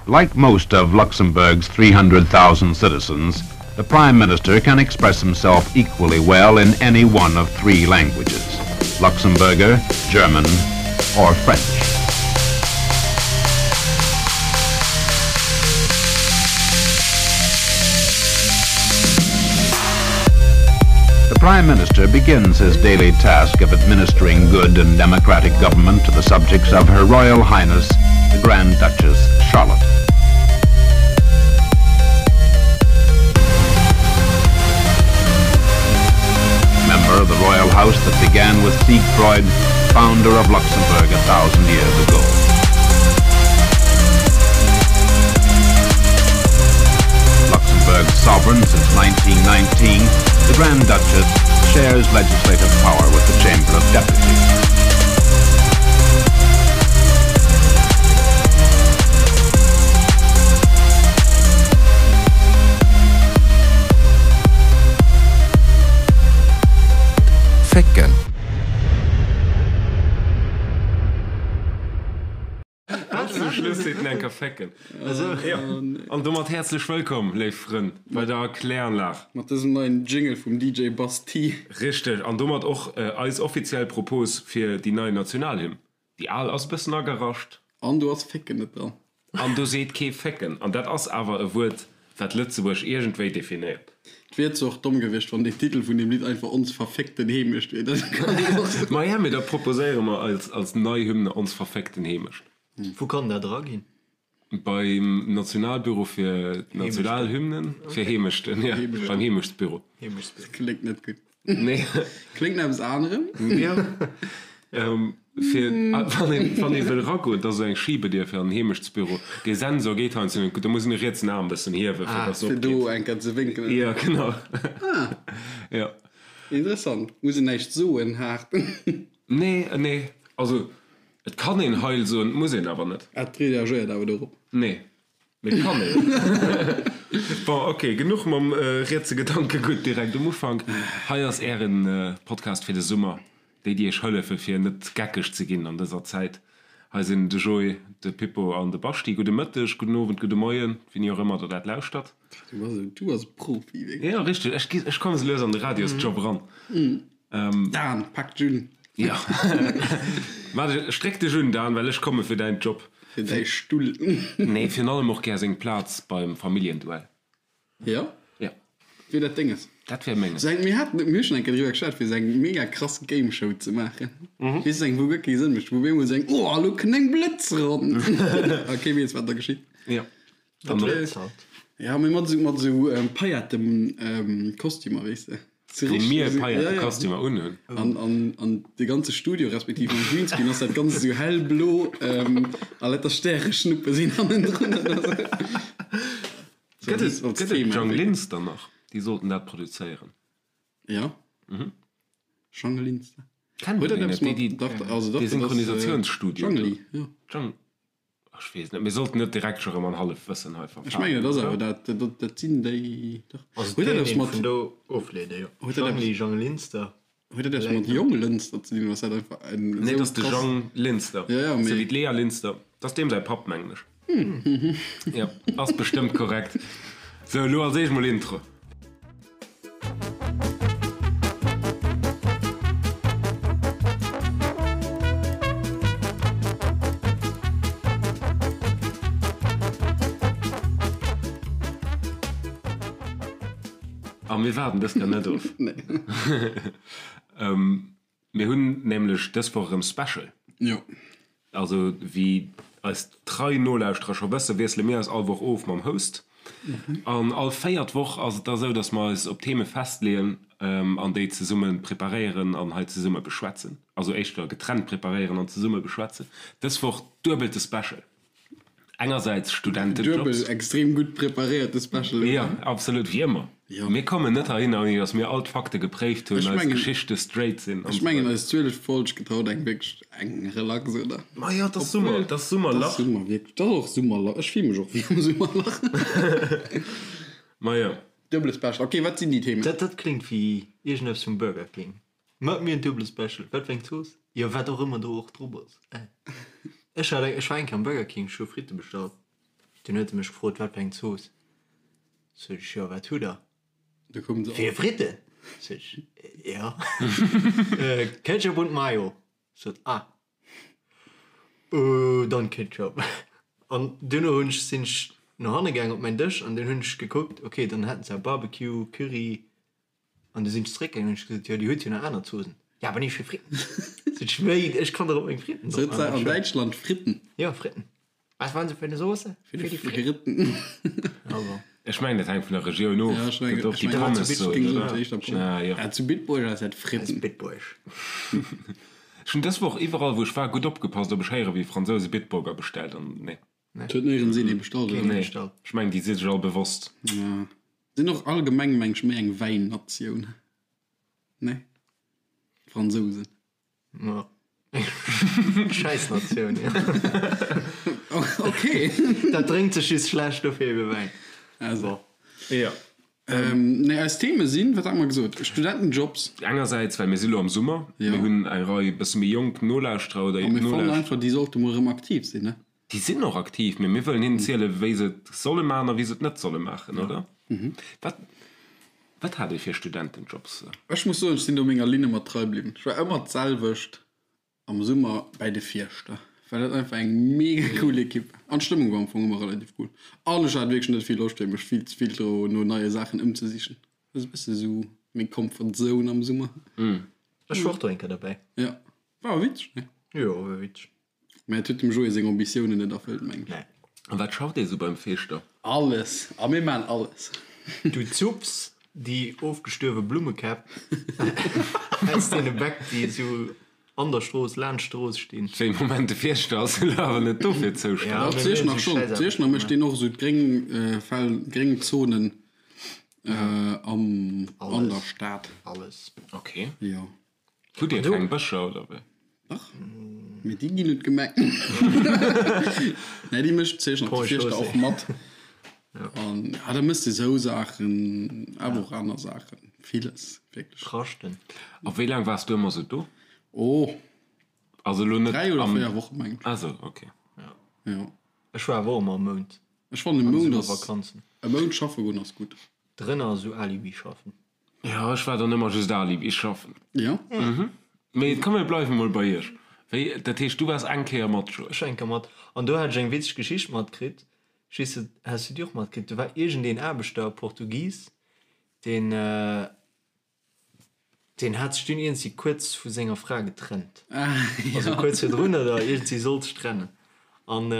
Like most of Luxembourg's 300,000 citizens, the Prime Minister can express himself equally well in any one of three languages, Luxembourger, German or French. The Prime Minister begins his daily task of administering good and democratic government to the subjects of Her Royal Highness, the Grand Duchess Charlotte. Member of the royal house that began with Siegfried, founder of Luxembourg a 1000 years ago. Luxembourg's sovereign since 1919, the Grand Duchess shares legislative power with the Chamber of Deputies. Fécken. Ganz zum Schluss seet en enker Fécken. Jo, an domat häerzlech wëllkomm, léif Frënn, bei der Kläranlag. Mat dësem neien Jingle vum DJ Bass T. Richteg, an domat och eis offiziell Propos fir déi nei Nationalhymn. Déi al ass e bëssen agerascht. An do ass Fécken net dran. An do seet kee Fécken. An dat ass awer e Wuert, wat Lëtzebuerg iergendwéi definéiert. Et wier zwar och domm gewiescht, wann den Titel vun deem Lidd einfach Ons verféckten Heemecht wier. Dat kann een och soen. Maja, mee da proposéiere mer als als nei Hymne Ons verféckten Heemecht. Wou kann dat eraginn? Beim Nationalbüro fir Nationalhymnen, fir Heemechten, jo, beim Heemechtsbüro. Dat kléngt net gutt. Nee. Kléngt no eppes anerem. Jo. Fir, wann een, wann ee wëll eragoen, da ass esou eng Schibedier fir an den Heemechtsbüro. Dee Sensor geet heiansdo net gutt, da muss een de rietsen Aarm e bëssen hiewen, fir dass se opgeet. Fir do eng Kéier ze wénkelen. Jo, genau. Ah. Jo. Interessant. Muss een näischt soen, haart. Nee, nee. Also, et kann een Heil soen, et muss een awer net. Et reagéiert awer dorop. Nee. Mee kann een. Bon, ok, genuch mam rietse Gedankegutt direkt um Ufank. Hei ass ären Podcast fir de Summer, déi déi iech hëllefe fir net geckeg ze ginn an dëser Zäit. Hei sinn de Joé, de Pippo an de Baschi. Gudde Mëtteg, gudden Owend, gudde Moien, wéini och ëmmer der dat lauschtert. Du bass e, du bass e Profi, wierklech. Jo, richteg. Ech gi, ech komme sou lues an de Radiosjob eran. Dan, pak dech un. Jo. Waart, stréck dech un, Dan, well ech komme fir däin Job. Fir däi Stull. Nee, virun allem och gär seng Plaz beim Familljenduell. Jo? Jo. Wier dat denges? Dat wär menges. Sou eng, mir haten, mir hu schonn eng Kéier driwwer geschwat, fir sou eng mega krass Gameshow ze maachen. Weess de, eng, wou guer kee Sënn mécht, wou op eemol sou eng, oh, elo kënnt eng Blëtz eran! A kee weess, wat da geschitt. Jo. Dat Blëtz halt. Ja, mee mat sou, mat sou Paillettenkostümer, weess de. Wou mir Paillettekostümer unhunn. An, an, an de ganze Studio, respektiv am Greenscreen ass dat Ganzt esou hellblo a lauter Stäreschnuppe sinn hannendrun. Gëtt et, gëtt et Jang Linster nach? Déi sollten dat produzéieren. Ja. Jang Linster. Kennt Huet een dat déi eppes net? mat, dach, also dach, Dee dat ass Synchronisatiounsstudio do. Jangli, jo. Jang. Ech weess net, mir sollten net direkt scho rëm an Hallefwëssen hei Ech mengen, verfalen, et ass oder? awer dat, dat, dat sinn déi, dach. Also Huet dat et eppes kéint een mat, vun do ofleeden, jo. huet dat eppes, Jangli, Jang Linster, huet dat eppes vläit mat nach. Jonglënster ze dinn, oder ass dat einfach en Nee, et esou ass de krass. Jang Linster, Ja, ja, sou mee. wéi d'Lea Linster. Dat ass deem säi Papp, mengen ech. Jo, ass bestëmmt korrekt. Sou, elo als éischt mol Intro. A mir waarden dës Kéier net of. Mir hunn nämlech dës Woch erëm Special. Jo. Also wéi eis trei Nolauschterer scho wëssen, wiessele mir eis all Woch of mam Host. An all véiert Woch ass et da sou, dass mer eis op Theme festleeën an déi zesumme preparéieren an hei zesumme beschwätzen. Also éischter getrennt preparéieren an zesumme beschwätzen. Dës Woch duebelte Special. Engersäits Studentejobs. Duebel extrem gutt preparéierte Special, oder? Jo, absolut, wéi ëmmer. Jo. Mir kommen net heihinner, ouni datt mir all d'Fakte gepréift hunn, Ech eis mengen, Geschichte straight sinn an ech esou mengen weider. eis 12 Folg gëtt haut eng wierklech eng relax, oder? Ma jo, et ass Summer, Obwuel, et ass et ass Summerlach. Summer, wierklech. Et ass och Summerlach. Ech fille mech och wéi am Summerlach. Ma jo. Duebele Special. Ok, wat sinn déi Themen? Dat, dat kléngt wéi iergendeppes vum Burger King. Mat mir en duebele Special. Wat fir eng Zooss? Jo, wat och ëmmer do och drop ass. Ech hat eng, ech war eng Kéier am Burger King, ech hu Fritte bestallt. Dunn huet e mech gefrot, wat fir eng Zooss. Sot ech, jo, wat hutt der? Du koum se Fir Fritten? Sot ech, jo. Ketchup und Mayo. Sot, ah, dann Ketchup. An duerno hunn ech, sinn ech no hanne gaang op mäin Dësch an dunn hunn ech gekuckt, okay, dann hätten se Barbecue, Curry, An du sinn ech zeréckgaangen an hunn ech gesot, jo, Dir hutt jo nach aner Zoosen. Ja, awer nicht fir Fritten. Sot ech, wéi, ech kann dach op meng Fritten drop maachen. Sot se an Däitschland Fritten? Jo, Fritten. Was wollen Sie für eine Soße? Für die Fritten. Also. Ech mengen, dat hänkt vun der Regioun of. Ja, ech mengen, Gëtt och ech déi mengen, Pommes-Zooss, ech géing soen, oder? éischter Pommes. Ah, jo. Ja, zu Bitburg ass dat Fritten. Bitburg. Ech hunn dës Woch iwwerall, wou ech war, gutt opgepasst, ob ech héiere wéi e Fransous e Bitburger bestellt. An nee. Et huet néierens een ee bestallt, oder? Nee, ech mengen, déi si sech all bewosst. Ja. Sinn och allgemeng meng ech méi eng Wäinnatioun, ne? D'Fransousen. Ma Schäissnatioun, jo. Ok. Dat drénkt sech just schlecht, dofir ebe Wäin. Also. Jo. Nee, eis Theme sinn, wat hate mer gesot? Studentenjobs. Engersäits, well mir si lo am Summer, Jo. mir hunn eng Rei bësse méi jonk Nolauschterer oder A mir fannen Nolauschterer. einfach, déi sollte mol erëm aktiv sinn, ne? Déi sinn och aktiv, mee mir wëllen hinnen zielen, wéi se et solle maachen a wéi se et net solle maachen, oder? Wat, wat hat Dir fir Studentenjobs? Ech muss soen, ech sinn do menger Linn ëmmer trei bliwwen. Ech war ëmmer d'selwecht am Summer bäi de Fierschter, well dat einfach eng mega cool Ekipp war. An d'Stëmmung war am Fong ëmmer relativ cool. An ech hat wierklech net vill Loscht, fir mech vill ze vill dro no neie Saachen ëmzesichen. Dat ass e bësse sou meng Comfort Zone am Summer. Ech war och do eng Kéier derbäi. Jo, war awer witzeg, ne? Jo, war witzeg. Mä et huet dem Joé seng Ambitiounen net erfëllt, mengen ech. Nee. A wat schafft ee sou beim Feeschter? Alles! A mir maachen alles! Du zupps déi ofgestuerwe Blummekäpp aus deene Bäck, déi esou an der Strooss, laanscht d'Strooss stinn. Wéi, Moment, de Fierschter ass elo awer net dofir zoustänneg. Dach, d'Zieschner schonn. D'Zieschner mécht deen och esou d'gréng Fel, gréng Zonen am, an der Stad. Alles. Ok. Jo. Hutt Dir keng Bëscher oder wéi? Dach, mee déi ginn un d'Gemeng. Nee, déi mécht d'Zeechner Paul Fierschter och Chaussée. mat. An ja, da mëss de sou Saachen, awer och aner Saachen, villes wierklech. Raschten. A wéi laang waars du ëmmer sou do? Oh, Also elo net 3 oder am. 4 Wochen, mengen ech. Ah sou, ok. Jo. Ech war awer och ëmmer e Mount Ech fannen e an de Mount ass, Summervakanzen. e Mount schaffe goen ass gutt. Drënner esou Alibi schaffen. Jo, ech war dann ëmmer just Alibi schaffen. Jo. Mee komm mir bleiwe mol bei iech. Wéi, dat heescht du waars eng Kéier mat, Joé? Ech war eng Kéier mat. An do hat ech eng witzeg Geschicht matkritt. Ech weess net, has du déi och matkritt? Do war iergendeen Aarbechter, Portugis, deen, deen hat sech dunn iergendwéi kuerz vu senger Fra getrennt. Also kuerz virdrun oder iergendwéi sollt sech trennen. An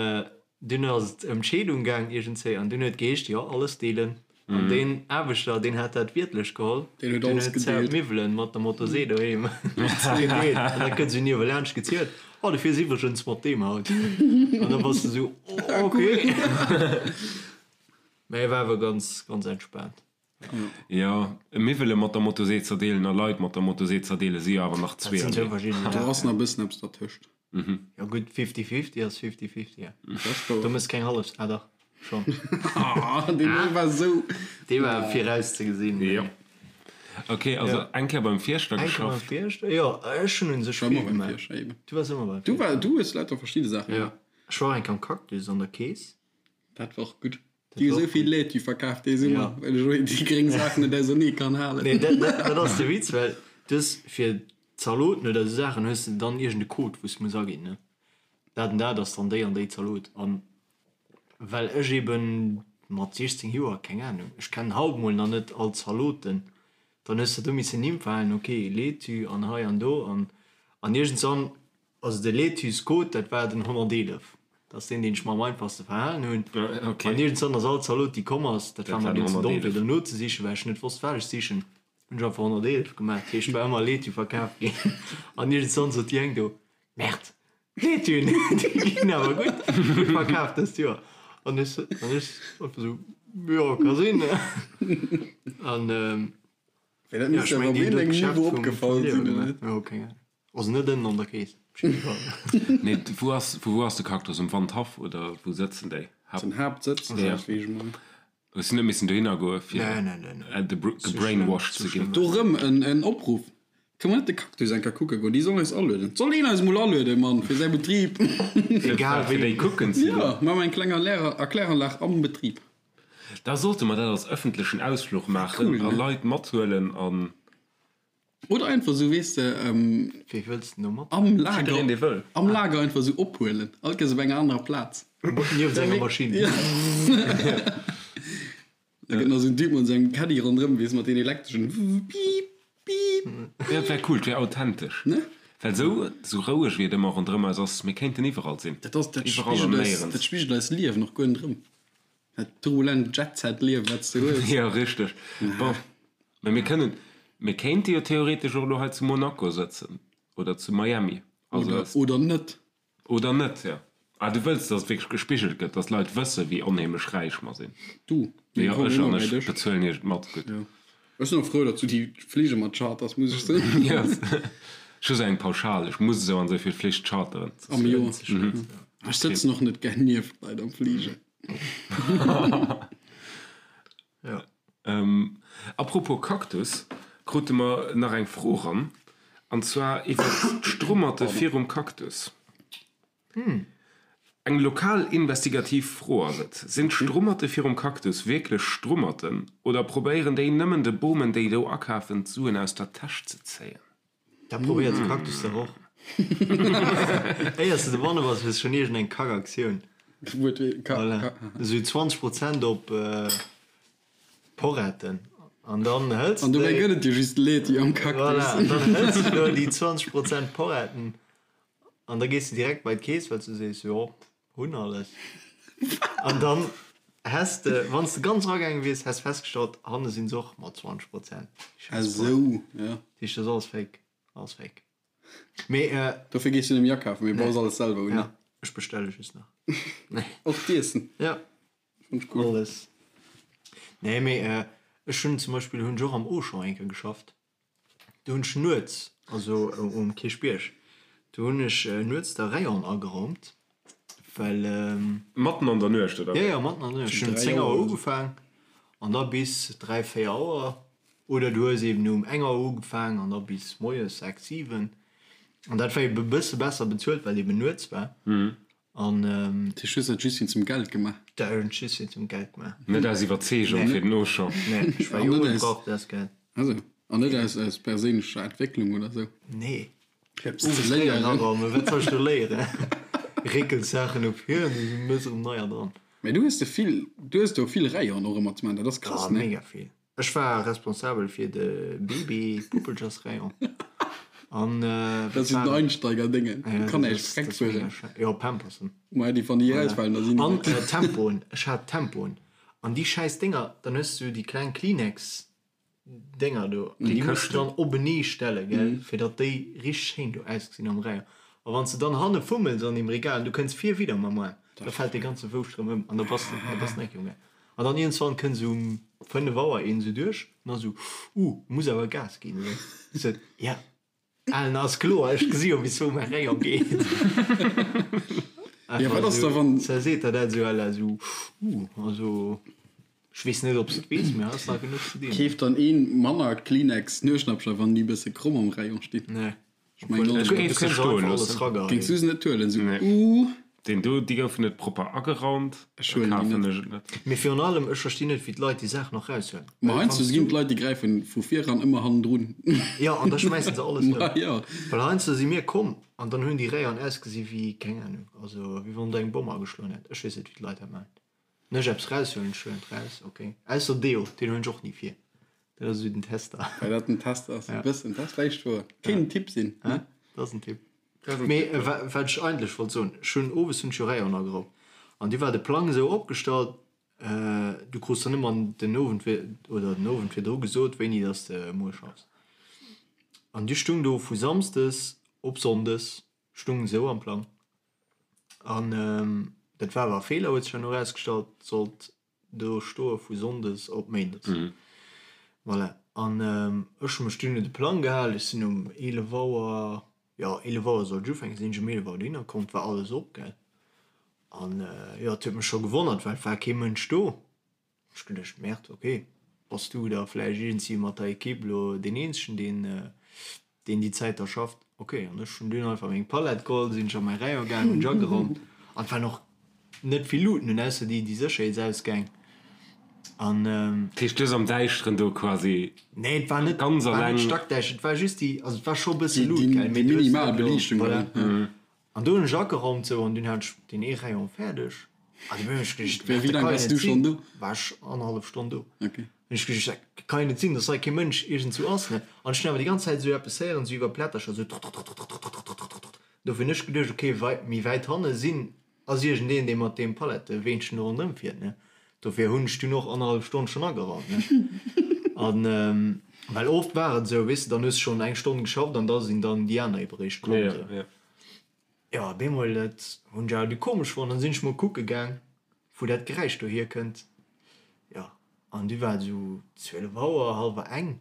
Dunn ass et ëm d'Scheedung gaang iergendzéi an dunn huet geheescht, jo, alles deelen. An deen Aarbechter, deen hat dat wiertlech geholl, Deen huet deen alles huet zau gedeelt. d'Miwwelen mat der Motosee doheem gedeelt. An da kënnt esou niewelaanscht gezielt, Oh, du fiers iwwregens mat deem haut. An da bass de esou, Oh, okay. Mä e war awer ganz, ganz entspaant. Jo, Miwwele mat der Motosee zerdeelen a Leit mat der Motosee zerdeele si jo awer nach Dat sinn zwou zweeërlee. verschidden Do ass Saachen. nach e bëssen eppes dertëscht. Jo gutt, fifty fifty ass fifty fifty, ja. Dat ass wouer. Do mëss keng hallef, ah dach, schonn. Ah, deen do war esou. Dee war virauszegesinn. Jo. Ok, also eng Kéier beim Fierschter Eng Kéier beim geschafft. Fierschter, jo, ech hunn un sech Ech war vill ëmmer beim gemaach. Fierschter, eben. Du waars ëmmer beim Du Fierschter. war, du hues lauter verschidde Saache Jo, gemaach. ech war och eng Kéier am Cactus an der Kees. Dat war och gutt. Dat Déi hu war sou och vill gutt. Laitue verkaaft dee Summer, Ja. well ech och déi gréng Saachen net ausernee kann halen. Nee, dat, dat, dat ass de Witz, well du hues fir Zaloten oder esou Saachen hues de dann iergend e Code, wou s de muss aginn, ne? Dat an dat ass dann déi an déi Zalot. An well ech eben mat 16 Joer, keng Ahnung, ech kennen haut mol nach net all d'Zaloten, dann hues de do missen Nimm verhalen, ok, Laitue an hei an do an an iergendswann Also de Laitue-Code, dat war den 111. Dat ass deen, deen ech mer am einfachste verhalen hunn. An iergendswann ass all Zalot, déi komm ass, dat war mer dunn ze domm, fir do nozesichen, well ech net wosst, wat ech sichen, hunn ech einfach 111 gemaach. Dat heescht, et war ëmmer Laitue verkaf ginn. An iergendswann sot déi eng do, Merde, d'Laituen, déi ginn awer gutt, gutt verkaf dëst Joer. An ech, an ech einfach esou, Jo, ka sinn. An, Mee dat jo, misst ech awer mengen, op déi hunn do iergendengem d'Geschäft Niveau vum, vum opgefall Liewe sinn, oder gemaach. net? Jo, keng Ahnung. Also net ënnen an der Kees, op jidde Fall. Nee, wou ass, vu wou ass de Cactus? Um Wandhaff oder wou sëtzen déi? Haupt. Den Haaptsëtz, Ja. wéi ech mol. Hues du net missen dohinner goe fir Nee, nee, nee, nee. gebrainwashed ze ginn? Do rëm en Opruff. Kënne mer net de Cactus eng Kéier kucke goen? Déi sollen eis alueden. Soll een eis emol alueden, Mann, fir säi Betrib? Egal wéi. Fir déi kucken ze goen. Jo, maache mer eng kleng Erkläranlag am Betrib. Da sollte mer dat als ëffentlechen Ausfluch maachen a Leit mathuelen an. Oder einfach esou, weess de, Wee wëlls de do mat? am Lager, Jiddereen, dee wëll. am Lager einfach esou ophuelen. All Kéiers op enger anerer Plaz. Nieft enger Maschinn. Da gëtt nach esou en Typ mat sengem Caddy ronderëm, weess, mat deen elektreschen Piip, Piip. Jo, et wär cool, et wär authentesch. Ne? Well esou, esou roueg wéi et ëmmer ronderëm eis ass, mir kéinten iwwerall sinn. Dat ass, dat Iwwerall an spigelt eis, néierens. dat spigelt eist Liewen och guer net erëm. Dat turbulent Jet-Set-Liewen, wat s de hues. Jo, richteg. Bon, mä mir kënnen, mir kéinte jo theoretesch och elo hei zu Monaco sëtzen oder zu Miami. Also Oder, es. oder net. Oder net, jo. Ah, du wëlls, dass et wierklech gespigelt gëtt, dass d'Leit wëssen, wéi onheemlech räich mer sinn. Du, mir Jo, kommen ech ëmmer an bei ech dech. bezuelen iech et mat. Gutt. Jo. Ech sinn och frou, datt du déi Flige mat charters, muss ech soen. Jo, ech hu sou eng Pauschal, ech muss esou an esou vill Flich charteren. Am Joer. Ech sëtzen och net gär nieft Leit am Fliger. Jo. Apropos Cactus, krute mer nach eng Fro ran, an zwar iwwert d'Strummerte virum Cactus. Eng lokal investigativ Fro ass et, Sinn d'Strummerte virum Cactus wierklech Strummerten oder probéieren déi nëmmen de Bomen déi do akafen d'Suen aus der Täsch ze zéien? Dat probéiert de Cactus dach och. Éiers de dobanne bass, hues schonn iergend eng Kackaktioun. Voilà. Esou 20 Prozent op Porretten. An dann hëls An de dobäi déi. gëtt et jo just Leti am Cactus. Voilà, an dann hëls de do déi 20 Prozent Porretten an da gees de direkt bei d'Keess, well s du sees, jo, hunn alles. An dann häss de, wann s de ganz eragaange wiers, häss festgestallt, hanne sinn se och mat 20 Prozent. Ah sou, ja. Dat heescht, dat ass alles fake. Alles fake. Mee. Dofir gees du net méi akafen, mee baus alles selwer un, ne? Ja, ech bestelle just nach. Och d'Iessen? Ja. Fand ech cool. Alles. Nee, mee ech hunn zum Beispill hunn ech och am Auchan eng Kéier geschafft. Do hunn ech nuets, also um Kierchbierg, do hunn ech nuets de Rayon ageraumt, well. Matten an der Nuecht, oder Jo, wéi? jo, matten an der Nuecht. Ech Zu hunn um 3 10 Auer Auer oder sou. ugefaang an da bis 3, 4 Auer. Oder du hues eben um eng Auer ugefaang an da bis moies 6, 7. An dat war eben e bësse besser bezuelt, well eben nuets war. An. Dat heescht, du hues dat just wéinst dem Geld gemaach? Dat hunn ech just wéinst dem Geld gemaach. Net aus Iwwerzeegung fir den Auchan? Nee, ech war An jong net an aus. brauch dat Geld. Also, an net aus, aus perséinlecher Entwécklung oder sou? Nee. Fir eppes ze Owes léieren léieren. araumen, wat soll ech do léieren? Réckels Saachen op hier an du mëss erëm neier dran. Mä du hues de vill, du hues do vill Rayonen och ëmmer ze maachen, dat ass krass, Ah, ne? mega vill. Ech war responsabel fir de Baby-Puppelchersrayon. An Dat sinn den Einsteiger-Déngen, do kann näischt dreck fueren. Jo, Pampersen. Ma déi wann déi erausfalen, da sinn An déi. Tempoen, ech hat Tempoen. An déi schäiss Dénger, dann hues du déi kleng Kleenex-Dénger do, an déi muss du dann openee stellen, gell, fir datt déi richteg schéin do ausgesinn am Rayon. A wann s de dann hanne fummels an deem Regal an du kënns vir widder mam Aarm, da fält dee ganze Wouscht erëm ëm an da bass de, da bass de eng Kéier um. An dann iergendswann kënnt esou um 5 Auer een esou duerch an dann esou, Uh, muss awer Gas ginn, oder? Ech sot, Ja, Alen, ass kloer, ech gesi jo bis wou mäi Rayon geet. Ja, wat ass da wann. Da seet der dat esou à la esou, Uh, also ech weess net, ob s de et weess, mee hei ass nach genuch ze dinn. Keeft dann ee manner Kleenex Nueschnappcher, wann déi e bësse kromm am Rayon stinn? Nee. Ech mengen Ech och. géif se stoen loossen. Géings du se net huelen? Sou, Nee. uh. Deen do, déi goufen net propper ageraumt, Ech da huelen déi kafen net. ech et net. Mee virun allem, ech verstinn net, wéi d'Leit déi Saach nach raushuelen. Ma Well heiansdo wanns ginn du. d'Leit, déi gräifen vu vir eran ëmmer hannendrun. Jo, an da schmäissen se alles Ma ëm. jo. Well heiansdo si mir komm an dann hunn déi Rayonen ausgesi wéi, keng Ahnung, also wéi wann do eng Bomm ageschloen hätt. Ech weess net, wéi d'Leit dat maachen. Wann ech eppes raushuelen, ech huelen et raus, ok. Ausser Deo, deen huelen ech och ni vir. Dat ass esou den Tester. Well dat den Test ass, e bëssen. Dat ass vläicht wouer. Kéint en Tipp sinn, ne? Dat ass en Tipp. Mee wat ech eigentlech wollt soen, ech hunn owes hunn ech jo Rayon ageraumt an du war de Plang esou opgestallt, du krus dann ëmmer den Owend vir oder den Owend virdru gesot, wéini dass de muer schaffs. An du stung do vu Samsdes op Sonndes stung esou am Plang. An dat war awer e Feeler, huet sech herno erausgestallt, sollt do stoe vu Sonndes op Méindes. Voilà. An ech hu mech dunn un de Plang gehal, ech sinn um 11 Auer, jo 11 Auer sollt ech ufänken, sinn ech um 11 Auer dohinner komm, et war alles op, gell. An jo, et huet mech scho gewonnert, well et war kee Mënsch do. Ech geduecht, Merde, ok, bass du da vläicht iergendwéi mat der Equipe elo deen eenzegen, deen. Deen déi Zäit da schafft. Ok, an ech hunn dunn einfach meng Palett geholl, sinn ech a mäi Rayon gaangen, hunn ech ageraumt an et waren och net vill Luuten un, ausser déi déi Sécherheetsausgäng an. Dat heescht, du hues am Däischteren do quasi Nee, et war net, ganz war net alleng. stackdäischter, et war just déi, also et war scho e bësse Déi, Luut, déi, gell, déi mee du hues minimal net elo, Beliichtung, voilà. oder? An do hunn ech ageraumt sou an dunn hat ech deen ee Rayon fäerdeg an du hunn ech geduecht, Wéi dat laang kann jo waars net du schonn sinn, do? war ech annerhallef Stonn do. Ok. Hunn ech geduecht, dat kann jo net sinn, dass hei kee Mënsch iergendzou ass, ne? An ech hunn awer déi ganz Zäit esou eppes héieren, esou iwwer Plättercher, esou trrtrrtrrtrrtrrtrrtrrtrrtrr. Dofir hunn ech geduecht, ok, wei méi wäit hanne sinn, ass iergendeen, dee mat deem Paletteweenchen do ronderëm fiert, ne? Dofir hunn ech dunn och annerhallef Stonn schonn ageraumt, ne? An well oft war et esou, weess de, dann hues de schonn eng Stonn geschafft an da sinn dann déi aner ebe réischt komm, esou. Jo, op eemol, dat hunn ech awer du komesch fonnt, dann sinn ech mol kucke gaang, wou dat Geräisch do hierkënnt. Jo, an du war et esou 12 Auer, hallwer eng.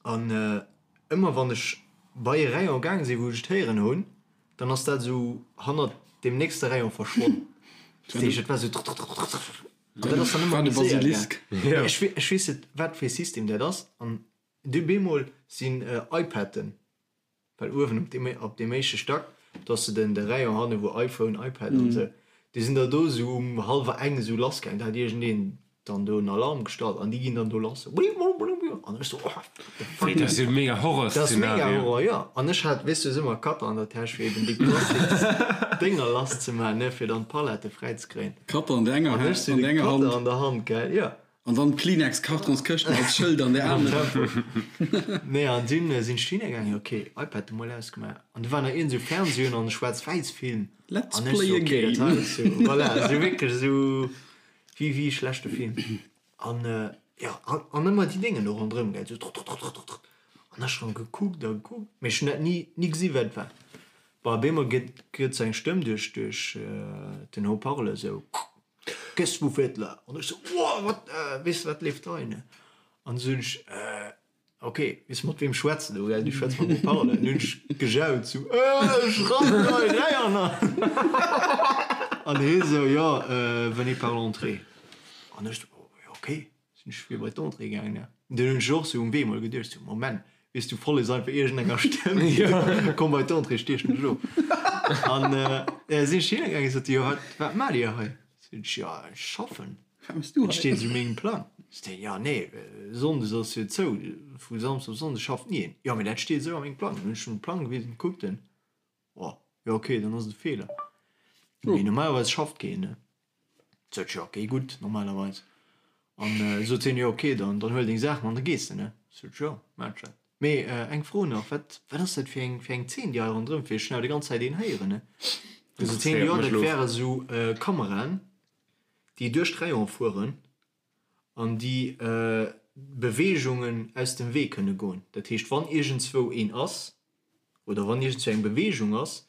An ëmmer wann ech bei e Rayon gaang sinn, wou ech et héieren hunn, dann ass dat esou hannert deem nächste Rayon verschwonn. Dat heescht, et war esou trrtrrtrrtrrtrr. An dat ass dann ëmmer War de méi séier gaang. Basilisk. Mee ech ech weess net, wat fir e System dat ass. An du bemol sinn iPaden Well uewen op deem, op deem éischte Stack, do ass de den, de Rayon hanne wou iPhone, iPad an esou, déi sinn da do esou um hallwer eng esou lass gaang. Da hat iergendeen dann do en Alarm gestallt an déi ginn dann do lass, sou bliblublu an ech sou, oh what the fuck. Wéi, dat ass jo mega Dat ass mega Horrorszenario. Horror, jo. An ech hat, weess du, ëmmer Cutter an der Täsch fir eben déi Plastiksdénger lass ze maachen, ne, fir dann d'Palette fräi ze kréien. Cutter an der enger, An ech sou an de der enger Cutter Hand. an der Hand, gell, jo. An dann d'Kleenex-Kartonskëschten als Schëld an der anerer. Nee, an dunn sinn ech dohinner gaangen, ok, iPad emol ausgemaach. An du war nach iergend esou Fernseh un an e Schwaarz-Wäiss-Film. Let's An ech play sou, a ok, dat game. hei ass sou, voilà, sou wierklech esou wéi wéi e schlechte Film. An jo, an an ëmmer déi Déngen do ronderëm, gell, sou trrtrrtrrtrrtrr. An ech schonn gekuckt a gekuckt, mee ech hunn dat ni ni gesi wat et war. Bon, op eemol gëtt gëtt sou eng Stëmm duerch duerch den Haut-parleur sou. Qu'est-ce que vous faites là? An ech sou, Wow, wat, weess de, wat leeft hei, ne? An du hunn ech, ok, weess de, mat weem schwätz de do, gell? Du schwätz mam Haut-parleur. An du hunn ech gejaut, sou, Ech rannen hei räi an An hie sou, Jo, venez par l'entrée. An ech sou, Jo, ok. Sinn ech fir bei d'Entrée gaangen, ne? Dunn hunn ech och sou um Wee mol geduecht, sou, Moment, weess du, follegs einfach iergendenger Stëmm, komm bei d'Entrée, stiechen dech of. An sinn ech hinne gaangen, sot déi, jo, wat, wat maacht Dir hei? Sot ech, jo, ech schaffen. Wat méchs du Et hei? steet esou mengem Plang. Sot déi, jo, nee, Sonndes ass jo zou, vu Samsdes op Sonndes schafft ni een. Jo, mee dat steet esou a mengem Plang. Dunn hunn ech em de Plang gewisen, kuckt en, oh, jo, okay, dann ass et e Feeler. Mee normalerweis schafft keen, ne? Sot ech, jo ok, gutt, normalerweis. An sot hien, jo ok, dann dann huel deng Saachen an da gees de, ne? Sot ech, jo, maan ech dat. Mee eng Fro nach, wat wat ass dat fir eng fir eng Zeen déi hei ronderëm fir? Ech hunn awer déi ganz Zäit een héieren, ne? Du sot hien, jo, dat wäre sou Kameraen, déi duerch d'Rayon fueren an déi Beweegungen aus dem Wee kënne goen. Dat heescht, wann iergendzwou een ass, oder wann iergendzwou eng Beweegung ass,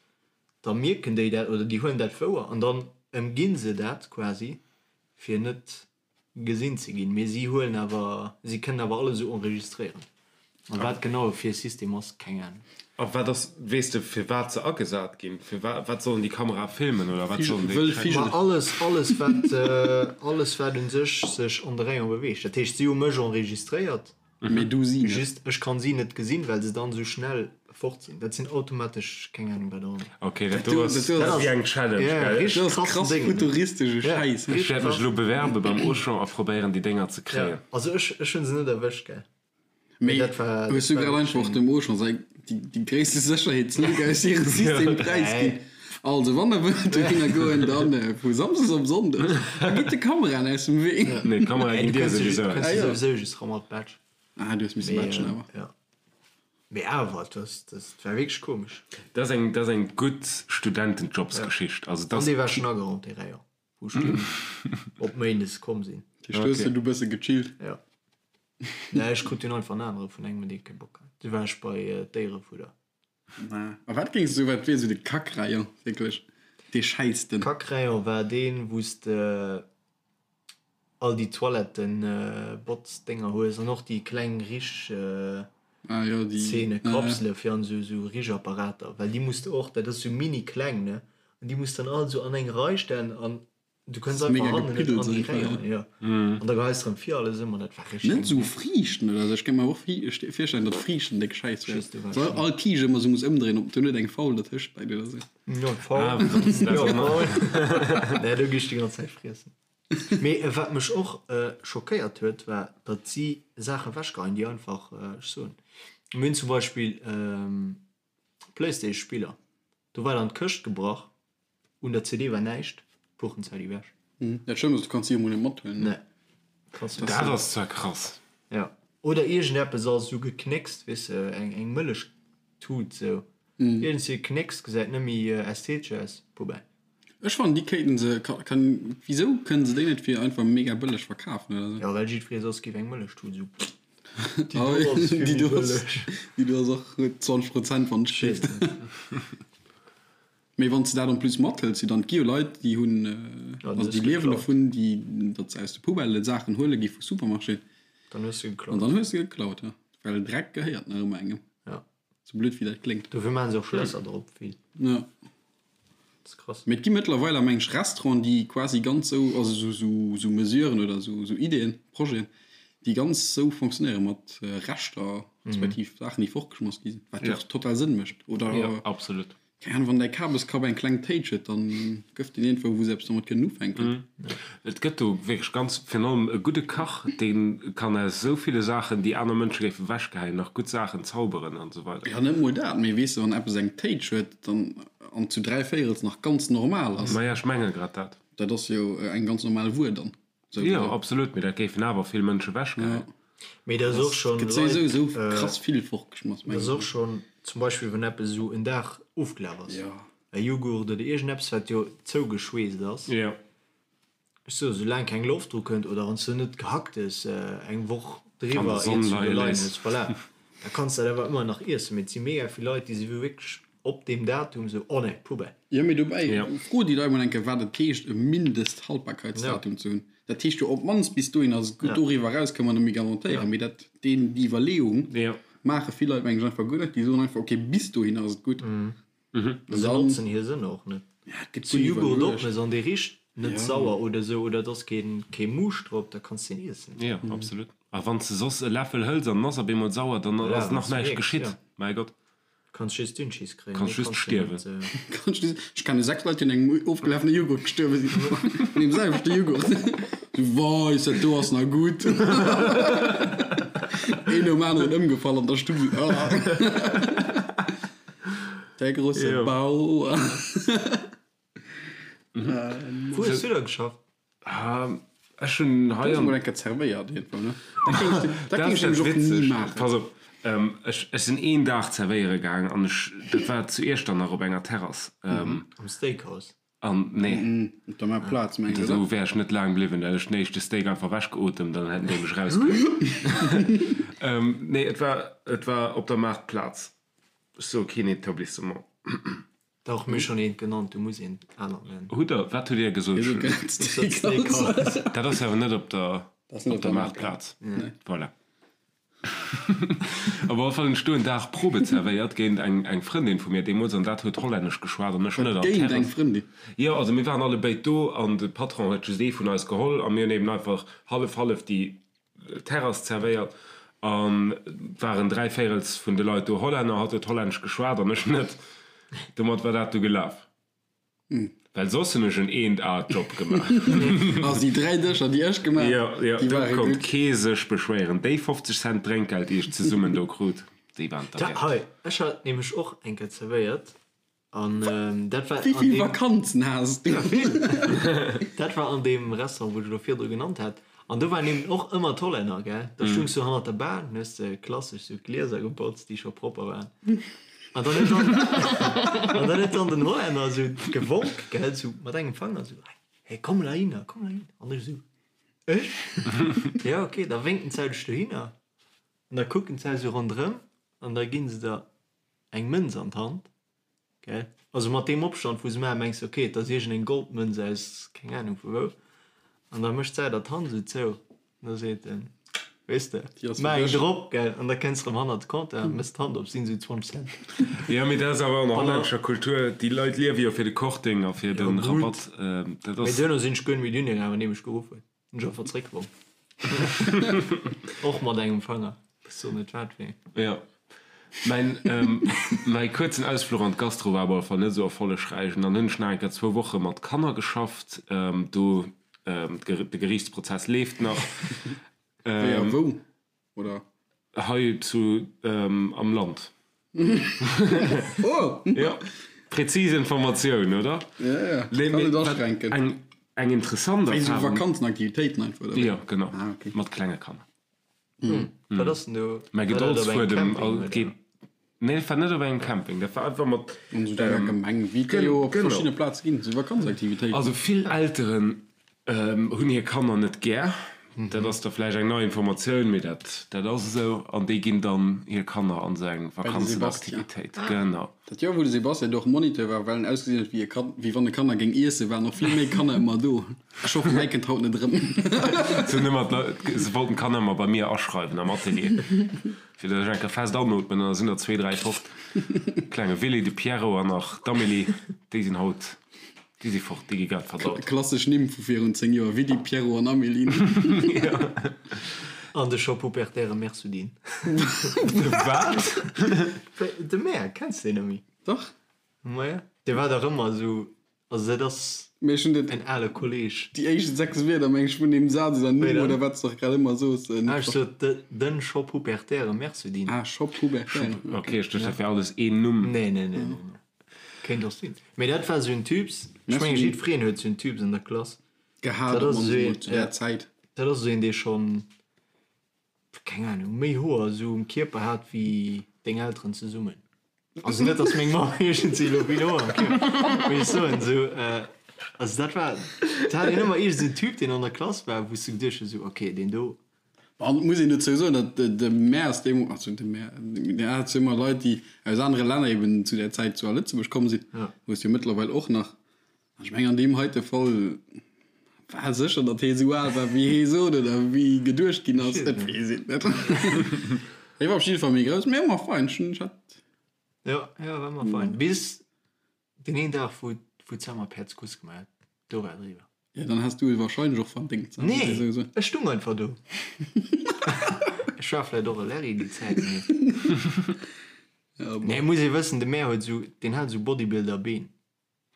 da mierken déi dat oder déi huelen dat wouer an dann ëmginn se dat quasi, fir net gesinn ze ginn. Mee si huelen awer, si kënnen awer alles esou enregistréieren. An wat genau fir e System ass, keng Ahnung. A wat ass, weess de firwat se agesat ginn? Fir wat sollen déi Kamerae filmen oder wat sollen déi Wëll tracken? Vigel. Ma alles, alles wat, alles wat un sech sech an de Rayon beweegt. Dat heescht, si hu mech enregistréiert. Mee du si net. Just ech kann si net gesinn, well se dann esou schnell fort sinn. Dat sinn automatesch keng Ahnung wat och ëmmer. Ok, dat do ass Dat dat ass wéi eng Challenge, Ja, gell? richteg Dat ass krassen krass Déngen, ne? futuristesche Ja, Schäiss. Ech richteg wäert mech krass. elo bewerbe beim Auchan a probéieren déi Dénger ze Ja, kréien. also ech ech hunn se net erwëscht, gell. Mee Mee dat war hues dat du war grad wierklech einfach eng. dem Auchan säi déi déi gréisste Sécherheetslück aus hirem System präisginn? Nee. Also wann der wëllt dohinner goen, dann vu Samsdes op Sonndes a gitt de Kameraen aus dem Wee. Nee, d'Kamerae Nee, ginn du dir kënns jo souwisou du aus. kënns Ah jo jo. souwisou just ra mat Badge. Ah, du hues misse Mee batchen awer. ja. Mee awer, dat dat war wierklech komesch. Dat ass eng dat ass eng gutt Studentenjobsgeschicht. Also dat An ass dee war schonn ageraumt, dee Rayon, wou ech dunn op Méindes komm sinn. Dat heescht, du hues du bësse gechillt? Ja. Nee, ech krut dunn einfach en anere vun engem, dee kee Bock hat. Du war ech bei Déierefudder. A wat géings du, wat wier esou de Kack-Rayon, wierklech dee schäissten? Kack-Rayon war deen, wou s de all déi Toiletten-Botz-Dénger hues an och déi kleng Rich-Zeene, Kapsele fir an esou Richapparater, well déi muss de och, dat ass esou mini kleng, ne, an déi muss de dann all esou an eng Rei stellen an. Du kënns einfach hannen net an déi Réier, jo. An da geheis de rëm vir alles ëm an dat war richteg. Net esou Friichten oder esou, ech kéint mer och virstellen, datt Friichten déck Schäiss wär. Soll all Kiischt ëmmer esou muss ëmdréinen, ob do net eng faul dertëscht läit oder esou. Jo, faul. Jo, faul. Nee, do gi ech déi ganz Zäit friessen. Mee wat mech och schockéiert huet, war, datt si Saachen ewechgeheien, déi einfach, ech soen, mir hunn zum Beispill Playstation-Spiller, do war dann d'Këscht gebrach, Un der CD war näischt, Puchenzäit ewech. Dat Schlëmmst ass, du kanns si jo mol net mathuelen, ne? Nee, kanns net. Dat ass zwar krass. Jo. Oder iergendeppes ass esou geknéckst, weess de, eng eng Mëllechtut esou. Iergendwéi geknéckst, gesäit net méi ästhetesch aus. Poubelle. Ech fannen, déi kéinten se, kann, wisou kënnen se déi net fir einfach mega bëlleg verkafen oder esou? Jo, well jiddweree soss géif eng Mëllechtut esou, déi do ass vill méi bëlleg. Déi do ass och 20 Prozent, wann ech keeft. Mee wann s de dat en plus mathëls, jo dann, et gi jo Leit, déi hunn, also déi liewen dovun, déi, datt se aus de Poubellë Saachen huele gi vu Supermarchéen. Dann hues de geklaut. An dann hues de geklaut, jo. Well Dreck gehéiert nach ëmmer engem. Ja. Sou blöd wéi dat kléngt. Dofir maache se och Schlässer drop, vill. Ja. Dat ass krass. Mee et gi mëttlerweil, meng ech, Restauranten, déi quasi ganz sou, also sou, sou, sou Mesuren oder sou, sou Ideeën, Projeten, déi ganz sou fonctionnéiere mat Reschter, respektiv Saachen, déi fortgeschmass gi sinn, wat jo och total Sënn mécht, oder? Jo, absolut. Keng Ahnung, wann däi Kabeskrapp eng kleng Téitsch huet, dann gëff deen iergendwou, wou se eppes domat kënnen ufänken. Et gëtt do wierklech ganz, virun allem e gudde Kach, dee kann aus esou ville Saachen, déi aner Mënsche géife wechgeheien, nach gutt Saachen zauberen an esou weider. Jo, net mol dat, mee weess de, wann eppes eng Téitsch huet, dann, an zu dräivéierels nach ganz normal ass. Maja, ech menge grad dat. Dat ass jo eng ganz normal Wuer dann. Jo, absolut, mee dat géifen awer vill Mënsche wechgeheien. Mee dat ass och schonn Gëtt souwisou esou krass vill fortgeschmass, mengen ech. Dat ass och schonn zum Beispill, wann eppes esou en Dag ofgelaf ass, e Jughurt oder iergendeppes, wat jo zougeschweesst ass. Ech soe soulaang keng Loft dru kënnt oder wann s du net Gehacktes eng Woch driwwer iert s du do leien hues, voilà, da kanns de dat awer ëmmer nach iessen. Mee et si mega vill Leit, déi si wierklech op deem Datum sou, oh nee, Poubelle. Jo, mee dobäi, fro déi Leit mol eng Kéier, wat et heescht, e Mindesthaltbarkeitsdatum ze hunn. Dat heescht jo, op d'mannst bis dohin ass et gutt, doriwwer eraus ka mer net méi garantéieren. Mee dat, deen, déi Iwwerleeung maache vill Leit, mengen ech, einfach guer net. Déi soen einfach, okay, bis dohin ass et gutt. An se notzen hir Sënner och net. Zu Jughurt opmëss an dee richt net sauer oder sou, oder et ass kee Muuscht drop, da kanns de en iessen. Jo, absolut. A wann s de soss e Läffel hëls an en ass op eemol sauer, dann ass nach näischt geschitt. Mäi Gott. Kanns just Dünnschiss kréien. Kanns just stierwen. Kanns just, ech kenne 6 Leit déi un engem ofgelafene Joghurt gestuerwe sinn. Un deem selwechte Joghurt. Sou, Weis, dat do ass nach gutt. Een nom aneren ëmgefall an der Stuff. Ah. Der grosse Bauer. Wou hues du da geschafft? Ech hunn hei an. Du hues mol eng Kéier zerwéiert iergendwou, ne? Dat géing ech, dat géing ech nämlech och ni maachen. Pass op, ech, ech sinn een Dag zerwéiere gaang an ech, dat war zu Iechternach op enger Terrass. Am Steakhouse? An, nee. Op der Maartplaz, mengs du, oder? Do wär ech net laang bliwwen, da hätt ech den éischte Steak einfach ewechgeotemt an dann hätten déi mech erausgeheit. Nee, et war, et war op der Maartplaz. Ech soe keen Etablissement. Dach, mir hu schonn eent genannt, du muss eent anert nennen. Hutt der, wat hutt Dir gesot? Steakhouse. Dat ass awer net op der, op der Maartplaz. Voilà. Op alle Fall hunn ech do en Dag Probe zerwéiert géint eng, eng Frëndin vu mir deemools an dat huet Hollännesch geschwat an ech net. An Géint eng Frëndin? Jo, also mir waren allebéid do an de Patron huet just ee vun eis geholl a mir hunn eben einfach hallef hallef déi Terrass zerwéiert an waren dräivéirels vun de Leit do Hollänner, hatt huet Hollännesch geschwat an ech net. Domat war dat du gelaf. Well soss hunn ech en eent A Job gemaach. Also déi 3 Dëscher déi ech gemaach Jo, jo, do konnt kee sech beschwéieren. Déi 50 Cent Drénkgeld déi ech zesummen do krut, déi waren derwäert. Hei, ech hat nämlech och eng Kéier zerwéiert An dat war Wéi vill Vakanzen has du? Ja, vill! Dat war an deem Restaurant, wou ech elo virdru genannt hat. An do waren eben och ëmmer d'Hollänner, gell? Da stoungs du hannert der Bar, dann hues de klassesch sou d'Glieser gebotzt, déi scho propper waren. An dann huet dann, an dann huet dann den Hollänner sou gewonk, gell, sou mat engem Fanger, sou, Hey, komm mol heihinner, komm mol heihinner. An ech sou, Ech? Ja, okay. Da wénken d'Zäit ech dohinner. An da kucken d'Zäit sou ronderëm an da ginn se der eng Mënz an d'Hand, gell? Also mat deem Opstand wou se maachen, mengs de ok, et ass iergendeng Goldmënz aus keng Ahnung vu wou. An da mécht säi der d'Hand esou zou an da seet en. Weess de? Maach eng drop, gell, an da kënns de rëm hannert de Compteur, mëss d'Hand op, sinn esou 20 Cent. Jo, mee dat ass awer an der hollännescher Kultur, déi Leit liewe jo fir de Korting a fir de Rabatt. Dat ass. Mee duerno sinn ech guer net méi dunn gaangen, wann dee mech geruff huet. Hunn ech einfach zréckgeworf. Och mat engem Fanger. Ech soen net wat fir een. Jo. Mäin, mäi kuerzen Ausfluch an d'Gastro war op alle Fall net esou erfollegräich. An dann hunn ech nach eng Kéier zwou Woche mat Kanner geschafft. Do, de Geriichtsprozess leeft nach. Wéi a wou? Oder? Hei zu am Land. Oh! Jo, präzis Informatioun, oder? Ja, ja, kann net aschränken. Eng, eng interessant Wéi sou Vakanzenaktivitéiten einfach, oder wéi? Jo, genau. Ah, okay. Mat klenge Kanner. Wat ass denn do? Mäi War dat op engem Gedoldsfuedem Camping, all oder? geet. Nee, dat war net op engem Camping, dat war einfach mat. An sou denger Gemeng, wéi et der jo op verschiddene Plaze ginn, sou Vakanzaktivitéiten. Also vill Elteren hunn hir Kanner net gär, dat ass da vläicht eng nei Informatioun, mee dat dat ass esou, an déi ginn dann hir Kanner an esou eng Bei de Sebastian. Vakanzenaktivitéit. Genau. Dat Joer wou de Sebastian do och Moniteur war, well en ausgesinn huet wéi e Kand, wéi wann e Kanner géing iessen, waren och vill méi Kanner ëmmer do. Ech hoffen, mäi kënnt haut net erëm. Se hunn ëmmer d'Leit, se wollten d'Kanner ëmmer bei mir aschreiwen am Atelier. Fir datt ech eng Kéier fest anootmen, an da sinn der zwee, dräi fort. Klenge Willy, de Pierrot an nach d'Amélie, déi sinn haut, déi si fort, déi gi grad verdaut. Klassesch Nimm vu virun 10 Joer, Willy, Pierrot an Amélie. Jo. An de Shop Hupertaire Mersudin. De wat? De Mer, kenns de deen net méi? Dach. Maja, dee war dach ëmmer esou Also dat ass Mee ech hunn dat, en ale Kolleg. déi éischt 6 Wierder meng ech vun deem Saz oder Numm oder wat s de och grad ëmmer soos, net Ah, ech sot de, den Shop Hupertaire Mersudin. Ah, Shop Hubertaire, Ok, ech duecht dat wär alles een Numm. Nee, nee, nee, nee, nee. Kéint och sinn. Mee dat war esou en Typs, ech mengen Mersudin. jiddwereen huet esou en Typs an der Klass. Gehat Dat op ass d'mannst esou emol een, zu där ja, Zäit. dat ass esou een, dee schonn, keng Ahnung, méi Hoer esou um Kierper hat wéi deng Elteren zesummen. Also net dass meng Mamm iergendwéi elo vill Hoer am Kierper, mee ech soen esou, also dat war, et hat een ëmmer iergend esou en Typ deen an der Klass war, wou s du geduecht hues esou, okay deen do. An et muss een dozou soen, datt de Maire deemools, also de Maire, mir hate jo ëmmer Leit déi aus anere Länner eben zu där Zäit zu a Lëtzebuerg komm sinn, hues jo mëttlerweil och nach, An ech mengen an deem heite Fall war sécher, datt hee sou al war wéi hee sot oder wéi geduecht ginn ass. Et weess een net. Hee war op jidde Fall méi grouss, mee ëmmer fein. Ech hunn, ech hat. Jo, jo, war ëmmer fein. Bis deen een Dag, wou, wou d'Sam Päerds Kuss gemaach huet, do war et eriwwer. Jo, dann has du et wahrscheinlech och verdéngt. Nee, ech stung einfach do. Ech war vläicht och e Larry déi Zäit, mee. Nee, muss ee wëssen, de Mär huet esou, deen hat esou Bodybuilder-Been.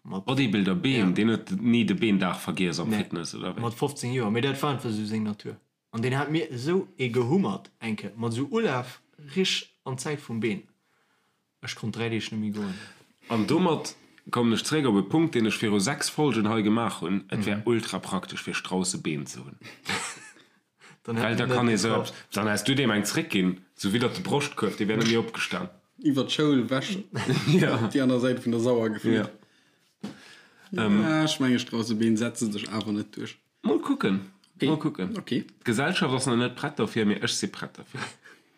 Mat Bodybuilder Been, deen huet ni de Beendag vergiess am Fitness, oder wéi? Mat 15 Joer, mee dat war einfach esou seng Natur. An deen hat mir esou ee gehummert eng Kéier, mat esou Ulaf rich an d'Zäit vum Been. Ech konnt 3 Deeg net méi goen. An domat kommen ech zeréck op e Punkt, deen ech viru 6 Folgen hei gemaach hunn, Et wär ultra praktesch fir Straussebeen ze hunn. Dann Well hätt da en net kann ee sou gebraucht. eppes, dann häss du deem eng zréckginn, sou widdert de Broschtkuerf, dee wär net méi opgestan. Iwwer d'Schoul ewech op déi aner Säit vun der Sauer geflütt. Ja, ech menge Straussebeen setze sech awer net duerch. Mol kucken, mol kucken. Okay. D'Gesellschaft ass nach net prett dofir, mee ech si prett derfir.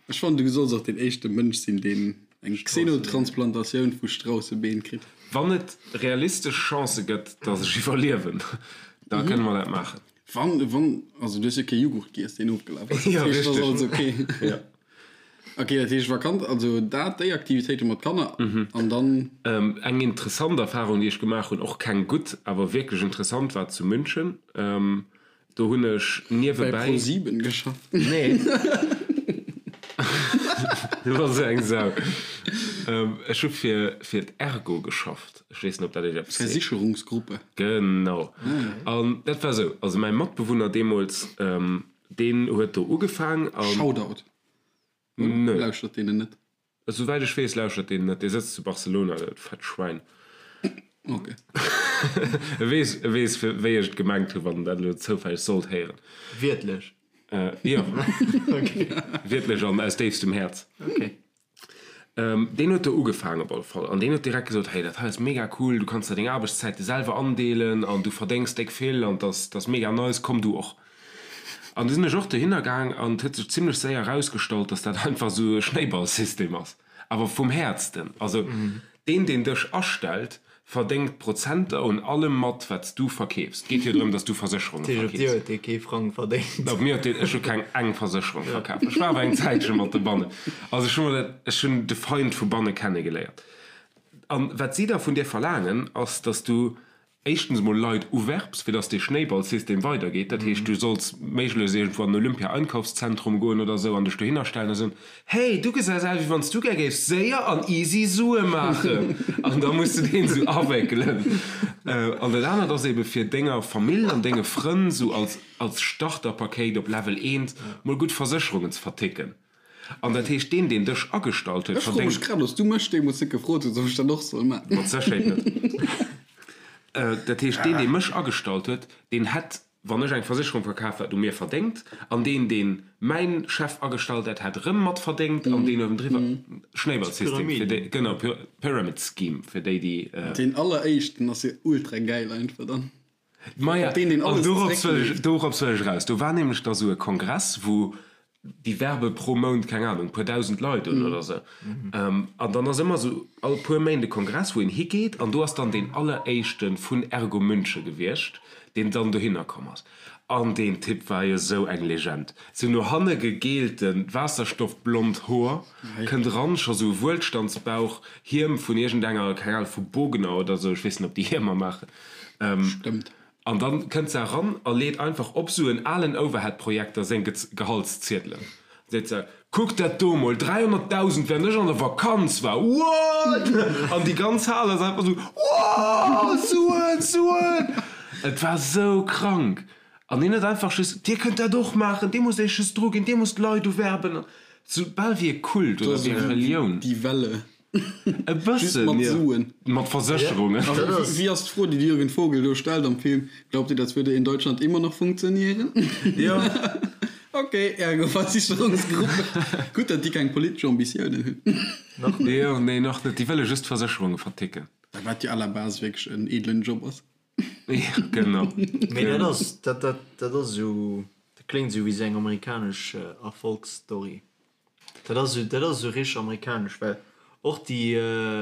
Ech fannen, du solls och deen éischte Mënsch sinn, deen eng Xenotransplantatioun vu Straussebeen kritt. Wann et realistesch Chancë gëtt, datt ech iwwerliewen, da kënne mer dat maachen. Wann, wann, also du hues jo kee Jughurt giess, deen ofgelaf ass. Ja, Dat heescht, richtig. ass alles okay. Ja. Okay, dat heescht Vakanz, also dat, déi Aktivitéite mat Kanner an dann. Ähm, eng interessant Erfahrung, déi ech gemaach hunn, och keng gutt, awer wierklech interessant, war zu München. Ähm, do hunn ech Bei niewebäi. ProSieben geschafft. Nee. Du bass esou eng Sau. Ähm, ech hu fir, fir d'Ergo geschafft. Ech weess net, ob dat Iech eppes seet. Versicherungsgruppe. Genau. An dat war esou, also mäi Matbewunner deemools, deen huet do ugefaang an. Shoutout. Nö. Lauschtert deen en net? Esouwäit ech weess, lauschtert deen net. Dee sëtzt zu Barcelona, dat fett Schwäin. Ok. E weess, e weess, wéi ech et gemengt hunn, wann en dat elo zoufälleg sollt héieren. Wiertlech? Jo. Wiertlech an aus déifstem Häerz. Ok. Deen huet do ugefaangen op alle Fall an deen huet direkt gesot, hey dat hei ass mega cool, du kanns der deng Aarbechtszäite selwer andeelen an du verdéngs déck vill an dass dass mega nice, komm du och. An du sinn ech och dohinner gaang an et huet sech zimlech séier erausgestallt, dass dat einfach esou e Schnéiballsystem ass, awer vum Häertsten. Also deen deen dech astellt, verdéngt Prozenter un allem mat, wat s du verkeefs. Et geet jo drëm, dass du Versécherunge Dat heescht, op dir verkeefs. huet dee kee Frang verdéngt. Op mir huet deen, ech hu keng eng Versécherung verkaf. Ech war awer eng Zäitche mat de Bannen. Also ech hu mer dat, ech hunn de Feind vu banne kennegeléiert. An wat si da vun dir verlaangen, ass, dass du éischtens emol Leit uwerbs, fir dass dee Schnéiballsystem weidergeet. Dat heescht, du solls méiglechst iergendwou an en Olympia-Einkaufszentrum goen oder esou an dech dohinner stellen a soen, Hey, du gesäis aus, wéi wann s du gär géifs séier an easy Sue maachen. An da muss du deen esou awéckelen. An dat anert ass ebe fir denger Famill an denge Frënn esou als als Starterpakéit op Level eent mol gutt Versécherungen ze verticken. An dat heescht, deen, deen dech agestallt huet, Ech froe mech verdéngt. grad, ob s du mech deemools net gefrot hues, ob ech dat och soll maachen. Mat Sécherheet net. Dat heescht, deen, dee mech agestallt huet, deen hätt, wann ech eng Versécherung verkaf hätt, u mir verdéngt. An deen, deen mäin Chef agestallt hätt, hätt erëm mat verdéngt. An deen uewendriwwer. Schnéiballsystem, fir déi, genau, Pyramid Scheme, fir déi, déi. Deen alleréischten ass jo ultra gäil einfach dann. Maja, Deen, deen an alles dorops wëll ech, zeréckleet. dorops wëll ech eraus. Do war nämlech da sou e Kongress, wou déi werbe pro Mount, keng Ahnung, puer dausend Leit un oder sou. An dann ass ëmmer sou all puer Méint e Kongress, wou een higeet, an do ass dann deen alleréischte vun Ergo München gewiescht, deen dann dohinner komm ass. An deen Typ war jo sou eng Legend. Sou no hanne gegeelten, waasserstoffblond Hoer, kënnt eran, scho sou e Wuelstandsbauch, Hiem vun iergendenger, keng Ahnung, vu Bogner oder sou, ech weess net, ob déi Hiemer maachen. Stëmmt. An dann kënnt se eran a leet einfach op sou en alen Overhead-Projekter seng Gehaltsziedelen. Seet se, Kuckt dat do mol, 300.000 während ech an der Vakanz war, what? An déi ganz Hal ass einfach sou, Wow, Suen, Suen! Et war sou krank. An hien huet einfach just, Dir kënnt dat och maachen, dir musst iech just druginn, dir musst Leit uwerben. Sou bal wéi e Kult oder wéi eng Relioun. Die Welle. E Just bëssen, mat jo. Suen. Mat Versécherungen. A wéi ass d'Fro, déi de Jürgen Vogel do stellt am Film, Glaubt ihr, das würde in Deutschland immer noch funktionieren? Jo. Ok, ergo Versicherungsgruppe. Gutt, datt déi keng politesch Ambitiounen hunn. Nach net. Jo, nee, nach net. Déi wëlle just Versécherunge verticken. Wat jo à la base wierklech en edlen Job ass. Jo, genau. Mee dat ass, dat, dat, dat ass esou, dat kléngt esou wéi esou eng amerikanesch Erfolgsstory. Dat ass esou, dat ass esou richteg amerikanesch, well och déi.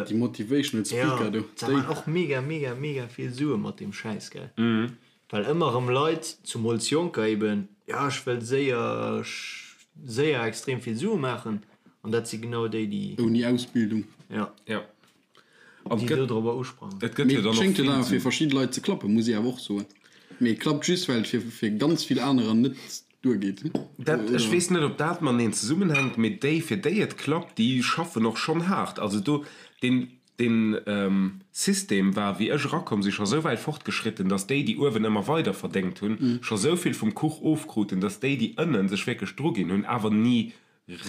Déi motivational speaker do, déi. Ja, maan och mega, mega, mega vill Sue mat deem Schäiss, gell? Well ëmmer erëm Leit, zumools Jonker eben, jo ech wëll séier, séier extrem vill Sue maachen, an dat si genau déi, déi. Ouni Ausbildung. Ja. Ja. An Déi et gëtt, do dorobber usprangen. et gëtt Mee jo et dann och schéngt jo vill dann awer fir esou. verschidde Leit ze klappen, muss ee awer och soen. Mee et klappt just, well et fir, fir ganz vill anerer net duergeet. Dat, ech weess net, ob dat mateneen zesummenhänkt, mee déi, fir déi et klappt, déi schaffen och schonn haart. Also do, deen, deen System war, wéi ech erakomm sinn, scho sou wäit fortgeschritten, datt déi, déi uewen ëmmer weider verdéngt hunn, scho sou vill vum Kuch ofkruten, datt déi, déi ënnen sech wierklech druginn hunn, awer ni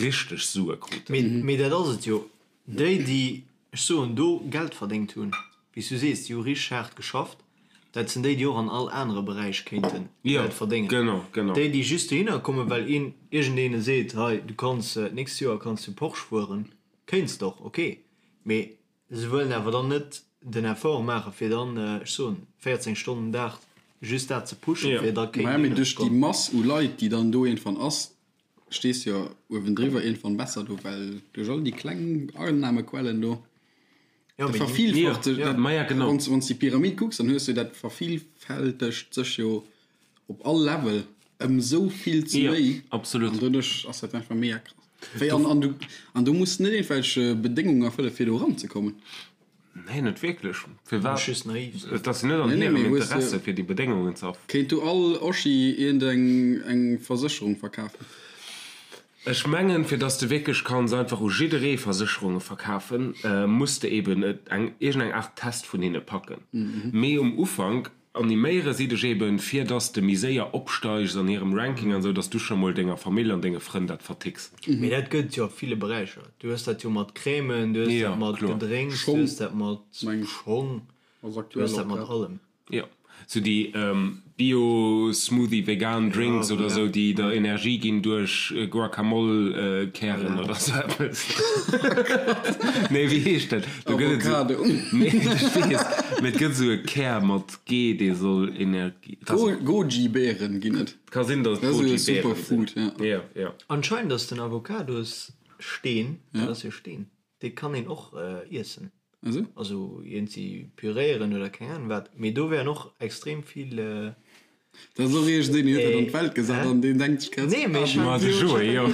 richteg Sue kruten. Mee, mee dat ass et jo. Déi, déi, ech soen, do Geld verdéngt hunn, wéi s du sees, déi hu richteg haart geschafft, dat sinn déi, déi och an all anere Beräich kéinte Geld verdéngen. Genau, genau. Déi, déi just dohinner kommen, well een, iergendeene seet, hei, du kanns, d'nächst Joer kanns du Porsche fueren, kéints de och, ok, mee se wëllen awer dann net den Effort maachen, fir dann, ech soen, 14 Stonnen den Dag just dat ze pushen, fir da Maja, kéinten mee dohinner duerch ze déi kommen. Mass u Leit, déi dann do iergendwann ass, stees jo uewendriwwer iergendwann besser do, well duerch all déi kleng Annahmequellen do, dat vervielfacht sech, dat, wann s de déi Pyramid kucks, dann hues du dat vervielfältegt sech jo op all Level ëm esou vill ze méi. Absolut. An doduerch ass dat einfach mega krass. Wéi an, an du, an du muss net iergendwelch Bedéngungen erfëlle fir do eranzekommen. Nee, net wierklech. Firwat? Muss just naiv sinn. Et ass jo net an Nee, nee, hirem mee hues Interesse, de. fir déi Bedéngungen ze erf. Kéint du all Oschi iergendeng eng Versécherung verkafen? Ech mengen, fir dass de wierklech kanns einfach u jidderee Versécherunge verkafen, muss de eben eng iergendeng Aart Test vun hinne packen. Mee um Ufank Animéiere si dech eben, fir dass de méi séier opsteigs an hirem Ranking an esou, dass du scho mol denger Famill an denge Frënn dat verticks. Mee dat gëtt et jo a ville Beräicher. Du hues dat jo mat Crèmen, du hues dat mat Gedrénks, du hues dat mat Schong, du hues dat mat allem. Jo, sou déi Bio Smoothie vegan Drinks oder sou, déi der Energie ginn duerch Guacamole Kären oder sou eppes. Nee, wéi heescht dat? Do gëtt et Avocado. Nee, ech weess, mee et gëtt esou e Kär mat G, dee soll Energie. Goji-Beeren ginn et. Ka sinn, datt et Dat ass esou e Goji-Beeren sinn. Superfood, ja. Ja, ja. Anscheinend ass den Avocadossteen, dat ass jo Steen, dee kann een och iessen. Also? Also iergendwéi püréieren oder keng Ahnung wat. Mee do wären och extrem vill. Dat ass och iergendeen, deen huet dat an d'Welt gesat an deen denkt sech grad, Nee, mee ech Ma hat de Joé, jo.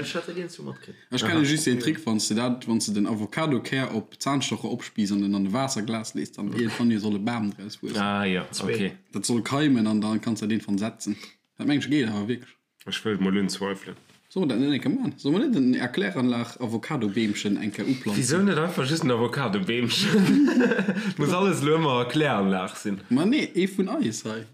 ech hat dat iergendzwou matkritt. Ech kenne just deen Trick, wann s de dat, wann s de den Avocadokär op Zahnstocher opspiiss an en an e Waasserglas lees, dann iergendwann jo soll e Bam draus wuessen. Ah jo, ok. Dat soll keimen an dann kanns de dat iergendwann setzen. Dat mengen ech geet awer wierklech. Ech wëll et mol unzweifelen. Solle mer dat net eng Kéier man? Solle mer net en Erkläranlag Avocadobeemchen eng Kéier uplanzen? Wisou net einfach just en Avocadobeemchen? Muss alles elo ëmmer Erkläranlag sinn? Ma nee, ee vun eis hei.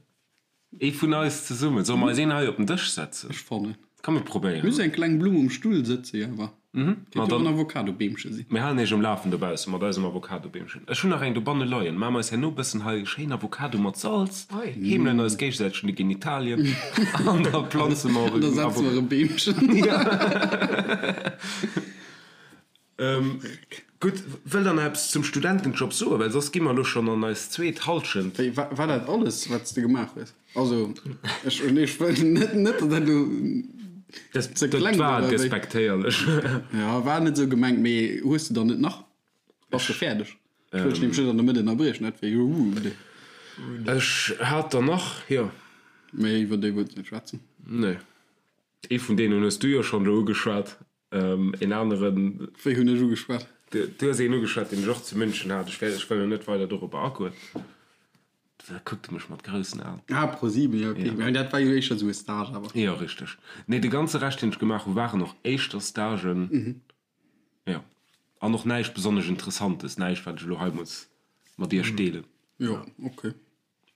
Ee vun eis zesummen. Solle mer eis een hei op den Dësch setzen? Ech fannen. Komm mir probéieren. Muss eng kleng Blumm um Stull sëtzen, jo awer. Mhm. Kéint jo och en Avocadobeemche sinn. Mir halen iech um Lafen dobausse mat eisem Avocadobeemchen. Ech hunn nach eng dobanne leien. Maache mer eis herno bëssen hei schéin Avocado mat Salz, heemelen eis géigesäiteg un de Genitalien an da planze mer och Da setze mer e Beemchen. Gutt, wëllt der nach eppes zum Studentenjob soen? Well soss gi mer elo schonn an eis zweet Hallschent. Wéi, war dat alles, wat s de gemaach hues? Also, ech, ech wëll net, net, datt dat elo ze kleng war. Dat war despektéierlech. Jo, war net esou gemengt, mee hues de dann net nach? Bass de fäerdeg? Ech wëll dech nämlech net an der Mëtt ënnerbriechen, dat wär jo rude. Ech hat der nach, jo. Mee iwwer déi wëlls de net schwätzen? Nee. Ee vun deenen hues du jo schonn elo ugeschwat. Een aneren. Wéi hunn ech ugeschwat? Du hues een ugeschwat, deen ech och zu München hat. Ech wëll, ech wëll elo net weider dorobber agoen. Da kuckt e mech mat groussen Aen. Ah, ProSieben, jo, ok. Mä dat war jo éischter esou e Stage awer. Jo, richteg. Nee, de ganze Rescht, deen ech gemaach hu waren och éischter Stagen. Jo. An och näischt besonnesch Interessantes, näischt, wat ech elo hei muss mat iech deelen. Jo, ok.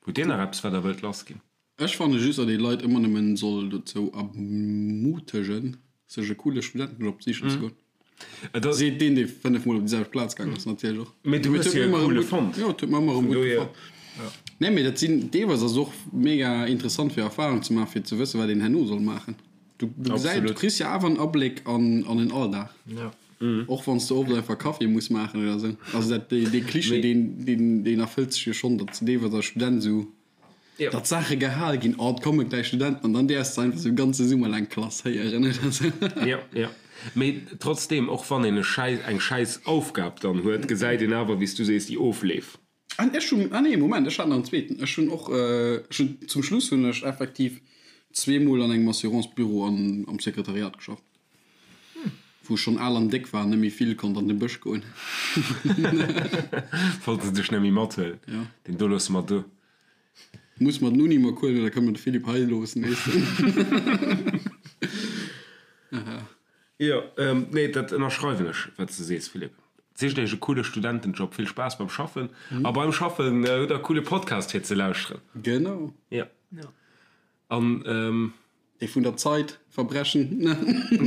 Hutt Dir nach eppes, wat Der wëllt lassginn? Ech fanne just, datt ee Leit ëmmer nëmmen soll dozou ermutegen, sech e coole Studentenjob sichen ze goen. Seet deen, dee 5 mol op déi selwecht Plaz gaangen ass, natierlech och. Mee du hues jo e coole fonnt. Jo, et huet mer ëmmer erëm gutt gefall. Nee, mee dat sinn, deelweis ass et och mega interessant fir Erfarung ze maachen, fir ze wëssen, wat een herno soll maachen. Du, du gesäis, du kriss jo awer en Abléck an, an den Alldag. Och wann s de oft einfach Kaffi muss maachen oder esou. Also dat, dee, dee Klischee, deen, deen, deen erfëllt sech jo schonn, datt s de deelweis als Student esou, datt Saache gehal ginn, oh, et komme gläich Studenten, an dann däerfs de einfach esou ganze Summer laang klasséieren oder esou. Jo, jo. Mee trotzdeem, och wann een e Schäiss, eng schäiss Aufgab dann huet, gesäit een awer, wéi s du sees, déi Ofleef. An ech hunn, ah nee, Moment, ech hat nach en zweeten. Ech hunn och, ech hunn, zum Schluss hunn ech effektiv zweemol an engem Assurance-Büro an am Sekretariat geschafft, wou ech schonn al an déck war an net méi vill konnt an de Bësch goen. Wollte se dech net méi mathuelen? Jo. Deen do loosse mer do. Muss mer den Uni mat huelen oder kënne mer de Philippe hei loossen, weess de? Jo, nee, dat ënnerschreiwen ech, wat s de sees, Philippe. Sicht iech e coole Studentenjob, vill Spaass beim Schaffen a beim Schaffen hutt der e coole Podcast fir ze lauschteren. Genau. Jo. An. Dee vun der Zeit, Verbrechen.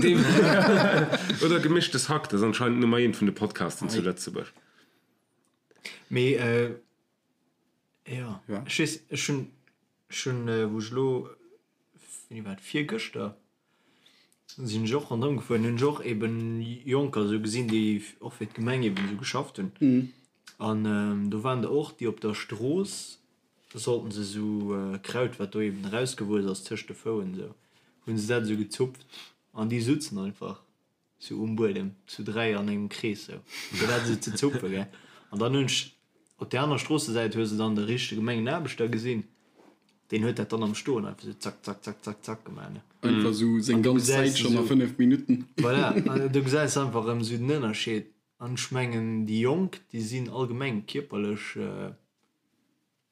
Dee, oder Gemischtes Hack, dat ass anscheinend Nummer eent vun de Podcasten zu Lëtzebuerg. Mee, jo, ech weess, ech hunn, ech hunn, wou ech elo, wéini war dat, virgëschter? Sinn ech och ronderëm gefuer an hunn ech och eben Jonker esou gesinn, déi och fir d'Gemeng eben esou geschafft hunn. An do waren der och, déi op der Strooss sollten se esou Kraut, wat do eben erausgewuess ass tëscht de Fouen esou, hunn se dat esou gezupft an déi sutzen einfach sou um Buedem zu 3 an engem Krees sou fir dat esou ze zupfen gell. An dann hunn ech op där aner Stroossesäit hues de dann de richtege Gemengenaarbechter gesinn, deen huet dat dann am Stoen einfach sou zack zack zack zack zack gemaach ne. Einfach sou seng ganz Säit schonn a 5 Minutten. Voilà, an do gesäis de einfach erëm sou den Ënnerscheed. An ech mengen déi Jonk déi sinn allgemeng kierperlech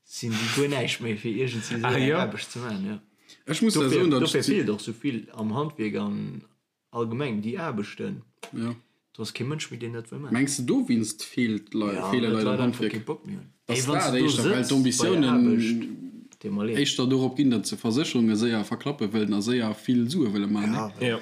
sinn déi guer näischt méi fir iergendwéi sou eng Aarbecht ze maachen, jo. Ech muss der soen, datt ech. Dofir feelt och sou vill am Handwierk an Allgemeng déi Aarbechten, Jo. do ass kee Mënsch méi deen dat wëll maachen. Mengs de dowéinst feelt Lei, Ja, feele well Leit d'Leit am einfach Handwierk? kee Bock méi hunn. Dass Ey, wann s dat de do éischter, well sëtz bei der d'Ambitiounen Aarbecht, deet mer leed. éischter dorop ginn, datt se Versécherunge séier verklappe wëllen a séier vill Sue wëlle maachen, Ja, ne? well Jo.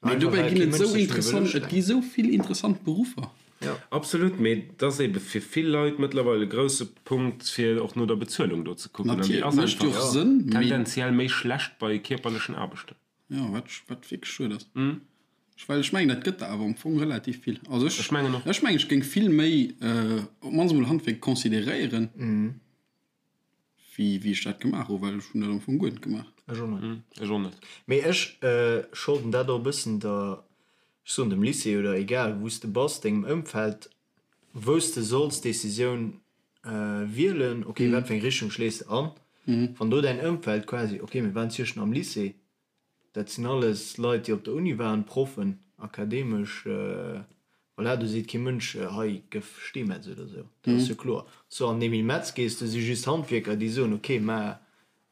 Mee einfach dobäi well ginn kee et Mënsch esou sech méi wëll interessant, et gi ustrengen. esou vill interessant Beruffer. Jo. Absolut, mee et ass ebe fir vill Leit mëttlerweil e grousse Punkt, fir och no der Bezuelung do ze kucken. An déi Natierlech, ass mécht jo einfach och Sënn, mee. tendenziell méi schlecht bei kierperlechen Aarbechten. Jo, wat, wat wierklech schued ass. Ech, well ech mengen, dat gëtt der awer am Fong relativ vill. Also ech, Ech mengen och. ech mengen, ech géing vill méi op d'mannst emol Handwierk consideréieren, wéi, wéi ech dat gemaach hu, well ech hunn dat am Fong guer net gemaach. Ech och net. Ech och net. Mee ech scholden dat och e bëssen der, ech soen dem Lycée oder egal wou s de bass, dengem Ëmfeld. wou s de solls d'Decisioun wielen, ok, wat fir eng Richtung schléis de an, wann do däin Ëmfeld quasi, ok, mir waren zwischen am Lycée, dat sinn alles Leit, déi op der Uni waren, Proffen, akademesch, voilà, do seet kee Mënsch, hei gëff Steemetz oder esou, dat ass jo kloer. Sou an den Emile Metz gees, do si just Handwierker, déi soen, ok, mä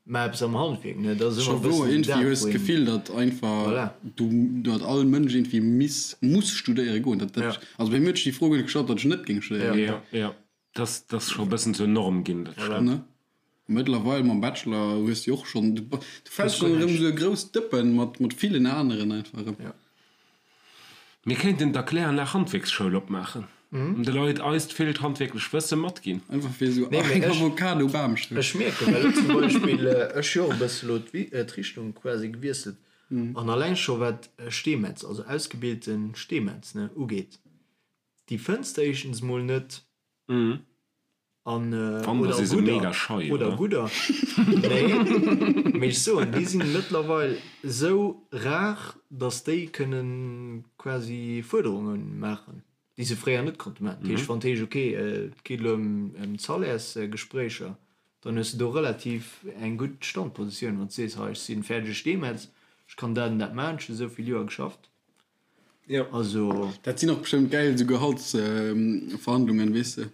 Mä eppes am Handwierk, ne? Dat ass ëmmer e bëssen dat, wou een. D'Gefill, datt einfach voilà. du, datt all Mënsch irgendwie miss, muss studéiere goen. Dat, dat, ja. Also bei mir huet sech déi Fro guer net gestallt, datt ech net géing studéiere goen. Ja, ja. Dat, dat ass scho e bëssen zur Norm ginn, dat stemmt. Ne? Mëttlerweil mam Bachelor hues du och schonn, du, du fäls schonn erëm esou e grousst Dëppen mat, mat villen aneren einfach erëm. Ja. Mir kéinten d'Erkläranlag Handwierksschoul opmaachen an de Leit eist villt handwierklech Wësse matginn. Einfach fir esou eng Avocado-Bamschoul. Ech mierken, well elo zum Beispill, ech hu jo och e bësse elo d'Richtung quasi gewiesselt an alleng scho wat Steemetz, also ausgebilte Steemetz, ne, ugeet, déi fënns de éischtens mol net. An Wann, da oder si se gudder, mega schei, oder oder? gudder. Nee, mee ech soen, déi sinn mëttlerweil esou rar, datt déi kënne quasi Fuerderunge maachen, déi se fréier net konnte maachen. Dat heescht, wann et heescht, ok, et geet elo ëm d'Salairsgespréicher, dann hues de do relativ eng gutt Standpositioun, wann s de sees, hei, ech si fäerdege Steemetz, ech kann dat an dat maachen, ech hu esou vill Joer geschafft. Jo. Also. Dat sinn och bestëmmt gäil esou Gehaltsverhandlungen, weess de.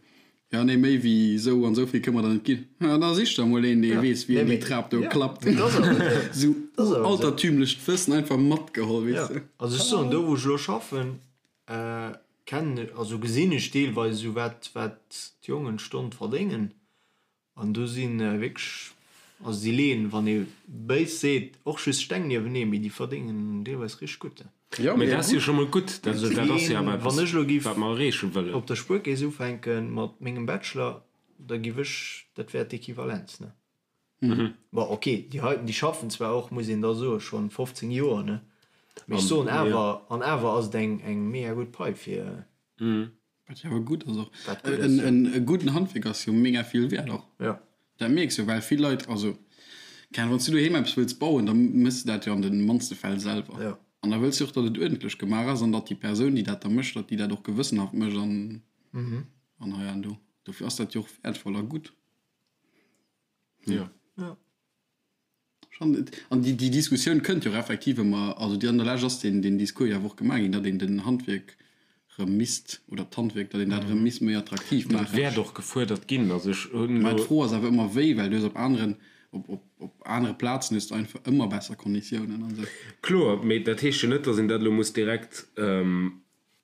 Jo, nee, méi wéi esou an esou vill kënne mer der net ginn. Ja, da sich der emol een, dee weess, wéi een déi Trap do klappt. Esou altertümlecht Wëssen einfach matgeholl, weess de. Also ech soen, do wou ech elo schaffen, kennen, also gesinn ech deelweis esou wat, wat d'Jongen d'Stonn verdéngen. An do si wierklech, also déi leeën, wann ee béis seet, och just Steng niewenee, mee déi verdéngen deelweis richteg gutt. Jo, mee dat ass jo scho mol gutt. Dat ass jo awer eppes, wat mer erreeche wëllen. Wann ech elo giff op der Spuerkeess ufänke mat mengem Bachelor, da giff ech, dat wär d'Equivalenz, ne? Bon, ok, déi heiten, déi schaffen zwar och, muss een da soen, schonn 15 Joer, ne? Mee ech soen awer, an awer ass et eng mega gutt Pai fir. Wat jo awer gutt ass och. Wat gutt ass, jo. E gudden Handwierk ass jo mega vill wäert och. Jo. Dat mierks jo, well vill Leit, also keng Ahnung, wann s du doheem eppes wëlls bauen, da méchs de dat jo an de mannste Fäll selwer. Jo. An da wëlls du och, datt et uerdentlech gemaach ass an datt déi Persoun, déi dat da mécht, datt déi dat och gewëssenhaft mécht an, an hei an do. Dofir ass dat jo och wäertvoll a gutt. Jo. Jo. An déi Diskussioun kënnt jo och effektiv ëmmer, also déi an der Lescht ass deen Discours jo awer och gemaach ginn, datt een den Handwierk erëm misst, oder d'Handwierk, datt een dat erëm misst méi attraktiv maachen. Dat wäert och gefuerdert ginn. Also ech hunn elo. Mä d'Fro ass awer ëmmer wéi, well du hues op aneren, op anere Plazen hues de einfach ëmmer besser Konditiounen an esou. Kloer, mee dat heescht jo net, datt een dat elo muss direkt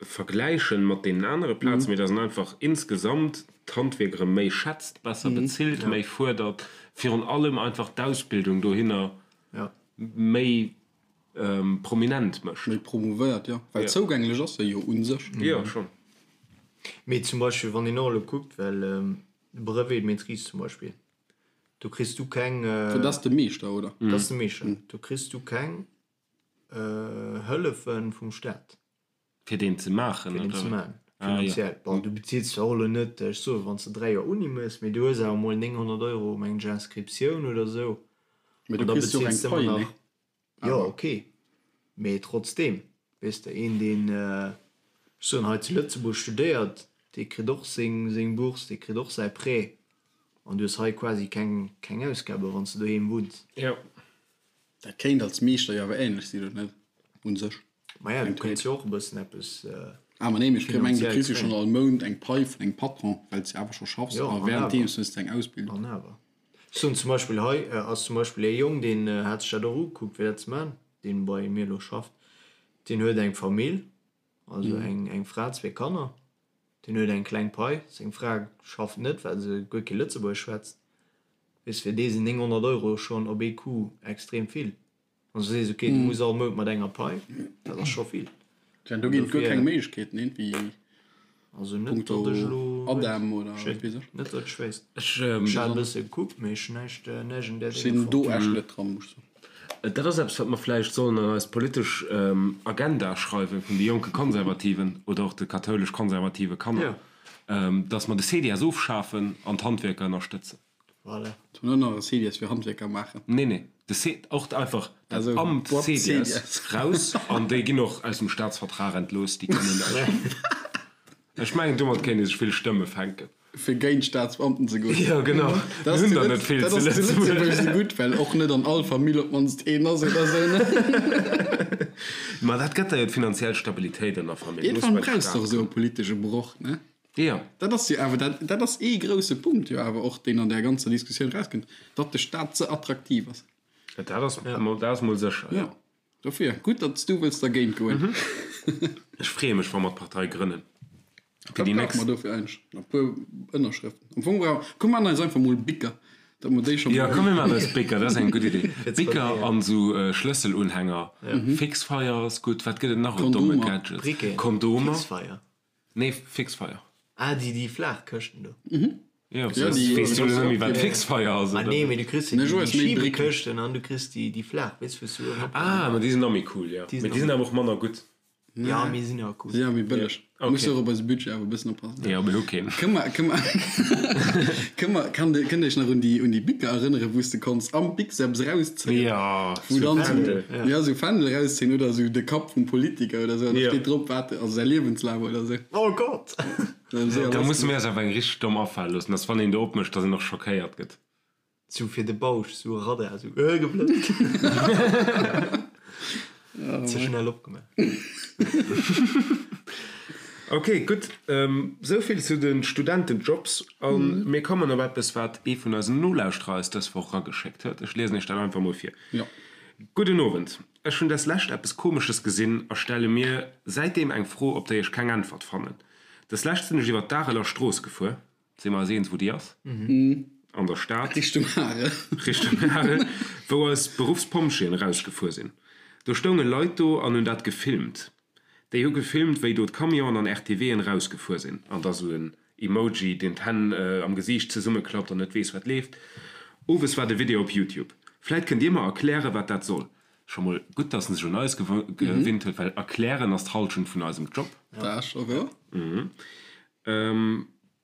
vergläichen mat deenen anere Plazen, mee dass en einfach insgesamt d'Handwierk erëm méi schätzt, besser bezilt, méi fuerdert, virun allem einfach d'Ausbildung dohinner méi prominent mécht. Méi promouvéiert, jo, well zougänglech ass se jo u sech. Jo, schonn. Mee zum Beispill, wann een och elo kuckt, well Brevet de maîtrise zum Beispill, do kriss du keng. Dat ass de Meeschter, oder? Dat ass de Meeschter. Do kriss du keng Hëllefe vum Staat. Fir deen ze maachen, Fir deen ze maachen, finanziell. Bon, du bezills zwar och elo net, ech soen, wann s de 3 Joer Uni méchs, mee du hues awer emol 900 Euro, mengen ech, Inscriptioun oder esou. Mee du kriss jo och eng Pai, ne? Jo, ok, mee trotzdeem, weess de, een, deen, ech soen, hei zu Lëtzebuerg studéiert, dee kritt och seng, seng Bourse, dee kritt och säi Prêt, an du hues hei quasi keng, keng Ausgaben, wann s de doheem wunns. Jo. Dat kéint als Meeschter jo awer ähnlech sinn, oder net? Un sech. Maja, du kéints jo och e bëssen eppes Ah, ma nee, mee ech mengen, du kriss jo schonn all Mount eng Pai vun engem Patron, well s de awer scho schaffs a wärenddeems hues de eng Ausbildung. An awer. Ech soen zum Beispill, hei ass zum Beispill ee Jong, deen hat sech dat och ugekuckt, fir dat ze maachen, deen bei mir elo schafft, deen huet eng Famill, also eng Fra, zwee Kanner, deen huet eng kleng Pai, seng Fra schafft net, well se guer kee Lëtzebuergesch schwätzt. Weess, fir dee sinn 900 Euro schonn op ee Coup extrem vill. Wann s du sees, ok, du muss all Mount mat enger Pai, dat ass scho vill. Tja, do ginn et guer keng Méiglechkeeten, iergendwéi Also net, punkto datt ech elo ADEM oder wat weess ech. Net, datt ech wéisst. Ech hat e bësse gekuckt, mee ech hunn näischt, näischt an där Ech sinn do echt net dran, muss ech soen. Dat ass eppes, wat mer vläicht sollen an eis politesch Agenda schreiwen vun de jonke Konservativen oder och de kathoulesch-konservative Kanner, datt mer de CDS ofschafen an d'Handwierker ënnerstëtzen. Voilà. Sollen och nach e CDS fir Handwierker maachen? Nee, nee, de C, och einfach dat Amt CDS raus an déi ginn och aus dem Staatsvertrag entlooss, déi kënnen näischt. Ech mengen, domat kéint ee sech vill Stëmme fänken. Fir géint Staatsbeamten ze goen. Jo, genau. Dat Mir hunn der net vill zu Lëtzebuerg. Dat ass zu Lëtzebuerg esou gutt, well och net an all Famill op d'mannst een ass oder esou, ne? Ma dat gëtt der jo d'finanziell Stabilitéit an der Famill. Iergendwann brauchs de och esou e politesche Broch, ne? Jo. Dat ass jo awer, dat, dat ass ee grousse Punkt jo awer och, deen an där ganzer Diskussioun erauskënnt, datt de Staat ze attraktiv ass. Dat ass, dat ass mol sécher, jo. Jo. Dofir, gutt, datt s du wëlls dergéint goen. Ech freeë mech, wa mer d'Partei grënnen. Fir déi nächst. Wat brauche mer dofir eigentlech? E puer Ënnerschrëften. Am Fong brauche, komm mer maachen eis einfach mol Bicker, datt mer déi scho mol. Jo, komm mir maachen eis Bicker, dat ass eng gutt Idee. Bicker an esou Schlësselunhänger. Fixfeier ass gutt. Wat gëtt et nach un domme Gadgets? Briqueten. Kondomer. Fixfeier. Nee, Fixfeier. Ah, déi, déi flaach Këschten do. Jo, weess du net méi wat Fixfeier ass, Ah oder? nee, mee du kriss jo déi Schiebekëschten an du kriss déi, déi flaach, weess wou s du uewen op. Ah, ma déi sinn nach méi cool, jo. Déi Mee déi sinn awer och manner gutt. Ja, mee sinn awer cool. Si awer méi bëlleg. Ok. Muss och op eise Budget awer e bëssen oppassen. Jo, mir hu keen. Kënn mer, kënn mer, kënn mer, kann de, kënnt Iech nach un déi, un déi Bicker erënneren, wou s de konns am Bic eppes erauszéien? Jo, Wou sou dann sou, Fändel. ja, sou Fändel erauszéien oder sou de Kapp vum Politiker oder sou, an da Jo. steet drop, wat, also säi Liewenslaf oder sou. Oh Gott! Da musse mir eis awer eng richteg domm afale loossen, dass wann een do opmécht, dass een och schockéiert gëtt. Sou fir de Bausch, sou e Radar, sou äh geblëtzt. Ze schnell opgemaach. Ok, gutt. Esou vill zu de Studentenjobs. A mir kommen op eppes, wat ee vun eisen Nolauschterer eis dës Woch erageschéckt huet. Ech liesen iech dat einfach mol vir. Gudden Owend. Ech hunn deslescht eppes Komesches gesinn a stelle mir säitdeem eng Fro, op déi ech keng Äntwert fannen. Deslescht sinn ech iwwer d'Areler Strooss gefuer. Si mer eis eens, wou déi ass? An der Stad. Richtung Arel. Richtung Arel, wou eis Beruffspompjeeën erausgefuer sinn. Do stounge Leit do an hunn dat gefilmt. Déi hu gefilmt, wéi do d'Camionen an RTWen erausgefuer sinn. An da sou en Emoji, deen d'Hänn am Gesiicht zesummeklappt an net weess, wat leeft. Owes war de Video op Youtube. Vläit kënnt Dir mer erklären, wat dat soll. Scho mol gutt, dass en sech un eis gewinnt huet, well erklären ass d'Hallschent vun eisem Job. Dat ass scho wouer.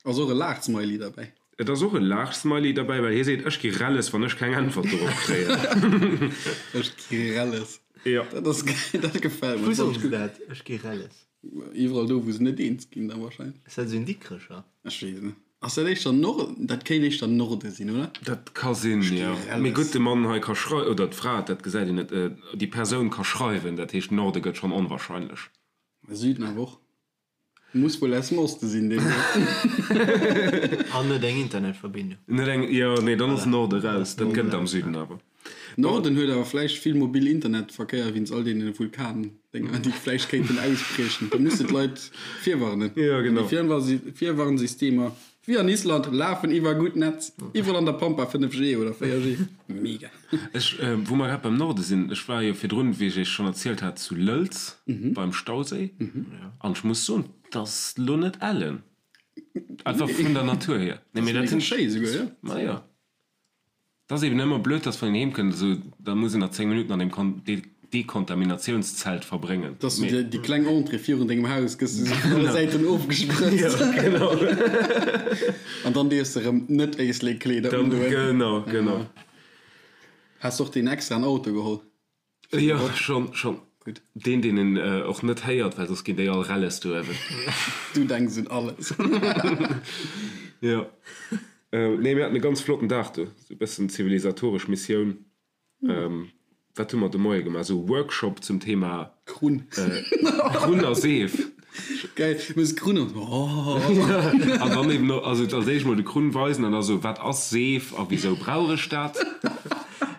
Ass och e Laachsmiley derbäi. Et ass och e Laachsmiley derbäi, well hie seet, Ech gi relles, wann ech keng Äntwert dorop kréien. Ech gi relles. Jo. Dat ass geil, dat gefält mer. Wou soen se dat, ech gi relles? Iwwerall do, wou se net eens ginn da wahrscheinlech. Ass dat esou en Dikrecher? Ech weess et net. Ass dat éischter Norden? Dat kéint éischter Norde sinn, oder? Dat ka sinn, jo. Mee gutt, de Mann hei ka schrei-, oder d'Fra, dat gesäit een net, déi Persoun ka schreiwen, dat heescht, Norde gëtt schonn onwahrscheinlech. Süden awer och. Muss wuel aus dem Oste sinn, deen do. An net eng Internetverbindung. Net eng, jo, nee, dann ass Norde raus. Dat gëtt et am Süden awer. Norden huet awer vläicht vill mobil Internetverkéier wéinst all deene Vulkandénger, déi vläicht kéinten ausbriechen. Da musse d'Leit virwarnen. Jo, genau. Déi Virwarnsystemer, wéi an Island, lafen iwwer gutt Netz. Iwwerall an der Pampa 5G oder 4G. Mega. Ech, wou mer grad beim Norde sinn, ech war jo virdrun, wéi ech iech schonn erzielt hat, zu Lëlz beim Stauséi an ech muss soen, 't ass lo net ellen, einfach vun der Natur hier. Nee, mee dat sinn, Schéi esouguer, jo. Ma jo, 't ass eben ëmmer blöd, dass wann een heem kënnt, esou, da muss een nach 10 Minutten an deem Dekontaminatiounszelt verbréngen. Dass du dir déi kleng Entrée virun dengem Haus gëss du sou vun alle Säiten ofgesprëtzt. Jo, genau. An dann dierfs de rëm net Éislek-Kleeder undoen. Genau, genau. Has de och deen extraen Auto geholl? Jo, schonn, schonn. Gutt. Deen, deen en och net héiert, well soss ginn déi all relles do uewen. Du denks un alles. Jo. Nee, mir haten e ganz flotten Dag do. Sou e bëssen zivilisatoresch Missioun. Wat hu mer de Moie gemaach? Esou e Workshop zum Thema Krunn. Krunn a Seef. Geil, muss Krunn an oh. An dann eben och, also als éischt mol de Krunn weisen an da sou, wat ass Seef a wisou brauch ech dat?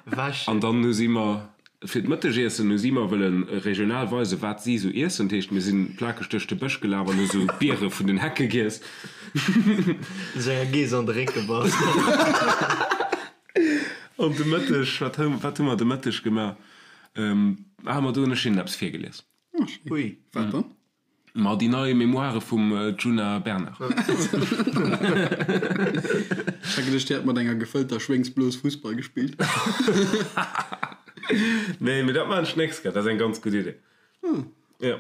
Wäschen. An dann hu si mer fir d'Mëttegiessen hu si mer wëlle regional weisen, wat si sou iessen. Dat heescht, mir sinn plakeg duerch de Bësch gelaf an hu sou Biere vun den Hecke giess. Sech enger Geess an de Réck gebass. An de Mëtteg, wat hu, wat hu mer de Mëtteg gemaach? Ah, ma do hunn ech hinnen eppes virgelies. Ah, schéin. Ui. Wat dann? Ma déi nei Memoire vum Djuna Bernard. Ech hat geduecht, dir hätt mat enger gefëllter Schwéngsblos Fussball gespillt. Nee, mee dat maachen ech d'nächst Kéier. Dat ass eng ganz gutt Idee. Jo.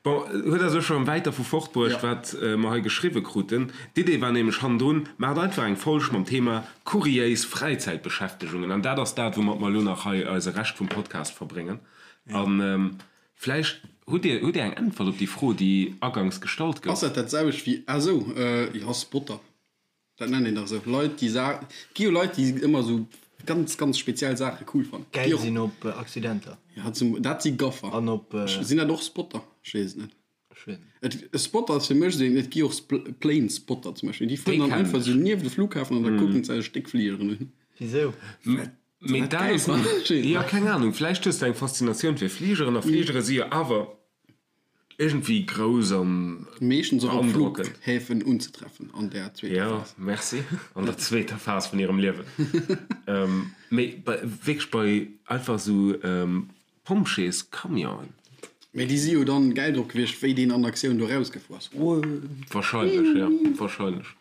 Bon, huet eis elo scho wäit dervu fortbruecht, wat mer hei geschriwwe kruten. D'Idee war nämlech hannendrun, Maacht einfach eng Folg mam Thema kuriéis Fräizäitbeschäftegungen. An dat ass dat, woumat mer elo nach hei eise Rescht vum Podcast verbréngen. A. Vläicht hutt Dir, hutt Dir eng Äntwert op déi Fro, déi agangs gestallt gouf? Ass dat dat selwecht wéi, ah sou, jo, Spotter, dat nennt een dach esou, Leit déi Sa, et gi jo Leit déi ëmmer esou ganz, ganz speziell Saache cool fannen. Gäil sinn op Accidenter. Ja, zum, dat si Gaffer. An op. Sinn dat och Spotter? Ech weess et net. Ech weess net. Et, e Spotter ass fir mech esou een, et gi och Plane Spotter zum Beispill, déi fueren dann einfach esou nieft de Flughafen an da kucken se sech déck Fligeren un. Wisou? Mee dat ass, jo, keng Ahnung, vläicht hues de eng Faszinatioun fir Fligeren a Fligere si jo awer iergendwéi grouss an Meeschtens och op beandrockend. Flughäfen unzetreffen an der zweeter Phas. Jo, merci, an der zweeter Phas vun hirem Liewen. Mee bei, wierklech bei einfach esou Pompjeescamionen. Mee déi si jo dann gäil drop gewiescht, wéi deen an Aktioun do rausgefuer ass. Wahrscheinlech, jo, wahrscheinlech.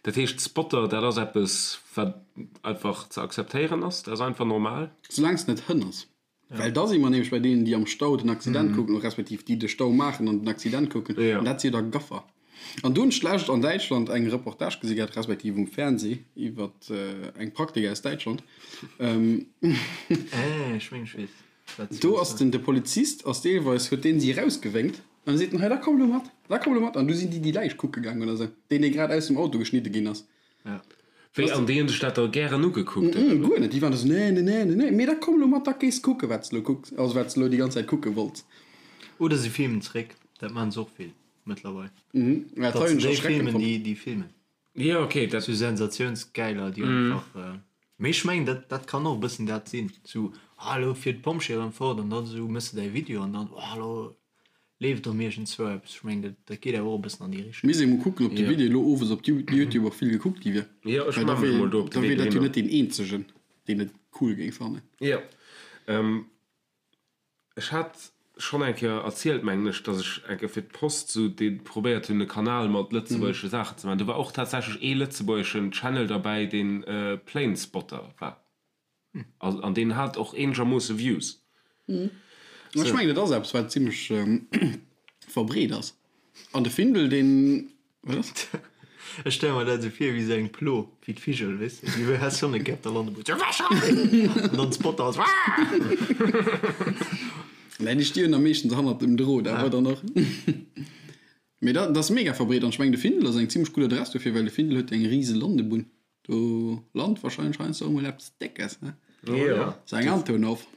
Dat heescht, Spotter, dat ass eppes, wat einfach ze akzeptéieren ass, dat ass einfach normal. Soulaang s net Hënn ass. Well da si mer nämlech bei deenen, déi am Stau den Accident kucken, respektiv déi de Stau maachen an den Accident kucken, an dat si jo da Gaffer. An do hunn ech d'lescht an Däitschland eng Reportage gesi gehat, respektiv um Fernseh, iwwer eng Praktik aus Däitschland. Ech meng ech weess wat s du Do ass den de Polizist ass deelweis, huet deen si erausgewénkt an da seet en, hei da komm elo mat, da komm elo mat. An du sinn déi déi Läich kucke gaang oder sou, deen dee grad aus dem Auto geschnidde ginn ass. Wéi, an déi hunn sech dat da gären ugekuckt oder wéi? Guer net, déi waren da sou, nee, nee, nee, nee, nee, mee da komm elo mat, da gees kucke wat s de elo kucks, also wat s de elo déi ganz Zäit kucke wollts. Oder si filmen zréck, dat maachen se och vill. Mëttlerweil. Mhm. Ja, dat hunn ech erschreckend fonnt. Déi, déi filmen. Jo, okay, dat. Sou Sensatiounsgäiler, déi einfach. Mee ech mengen, dat, dat kann och e bëssen dat sinn. Sou, ah, elo fiert d'Pompjeeë erëm fort an dann esou méchs de däi Video an dann, oh, elo leeft erëm iergendzwou eppes. Ech mengen, dat, dat geet awer och e bëssen an déi Richtung. Misst ee mol kucken, ob de Video elo owes op Youtube och vill gekuckt gi wier. Jo, ech Well da maache mech wier, mol do op de da Wee wier dat jo dohinner. net deen eenzegen, deen et cool géing fannen. Jo. Ech hat schonn eng Kéier erzielt, mengen ech, datt ech eng Kéier fir d'Post sou dee probéiert hunn, e Kanal mat lëtzebuergesche Saachen ze maachen. Do war och tatsächlech ee lëtzebuergeschen Channel derbäi, deen Planespotter war. An deen hat och eenegermoosse Views. Ech mengen, et ass eppes, wat zimmlech verbreet ass. An de Findel, deen Wat ass? Ech stelle mer dat esou vir wéi esou eng Plo, wéi d'Vigel, weess de, déi has schonn e Gäert da lande wou an dann d'Spotter ass. Nee, déi stinn am meeschtens hannert dem Drot awer dann och. Mee dat ass mega verbreet an ech mengen de Findel ass eng zimmlech gutt Adress dofir, well de Findel huet eng rise Landebunn. Do lant wahrscheinlech heiansdo och mol eppes Déckes, ne? Jo. Sou eng Antonov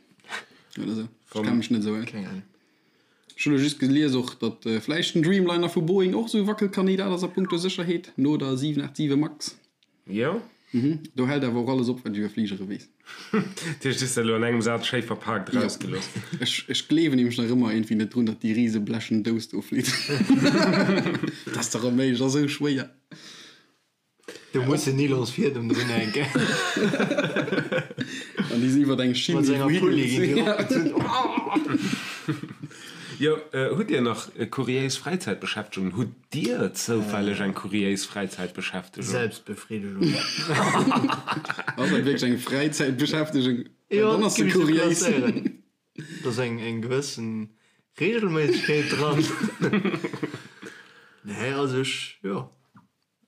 oder sou. Ech kenne mech net esou aus. Keng Ahnung. Ech hunn elo just gelies och, datt vläicht den Dreamliner vu Boeing och esou e Wackelkandidat ass a punkto Sécherheet, no der 787 Max. Jo. Mhm. Do hält awer och alles op, wat ech iwwer Fligere weess. Dat heescht, du hues dat elo an engem Saz schéi verpaakt erausgelooss. Jo. Ech, ech gleewen nämlech nach ëmmer iergendwéi net drun, datt déi rise blechen Dous do flitt. Dat ass dach onméiglech, ass esou schwéier. Do muss en Nylonsfiedem drun hänken. An déi sinn iwwer eng Schinn, Mat déi senger wou Pulli ginn déi higeet. eropgezunn. Jo, hutt Dir nach kuriéis Fräizäitbeschäftegungen? Hutt Dir zoufälleg eng kuriéis Fräizäitbeschäftegung? Selbstbefriedigung. Ass dat wierklech eng Fräizäitbeschäftegung? Well Jo, dann ass se géif ech sou kuriéis. klasséieren. Do ass eng eng gewëssen Regelméissegkeet dran. Nee, also ech, jo.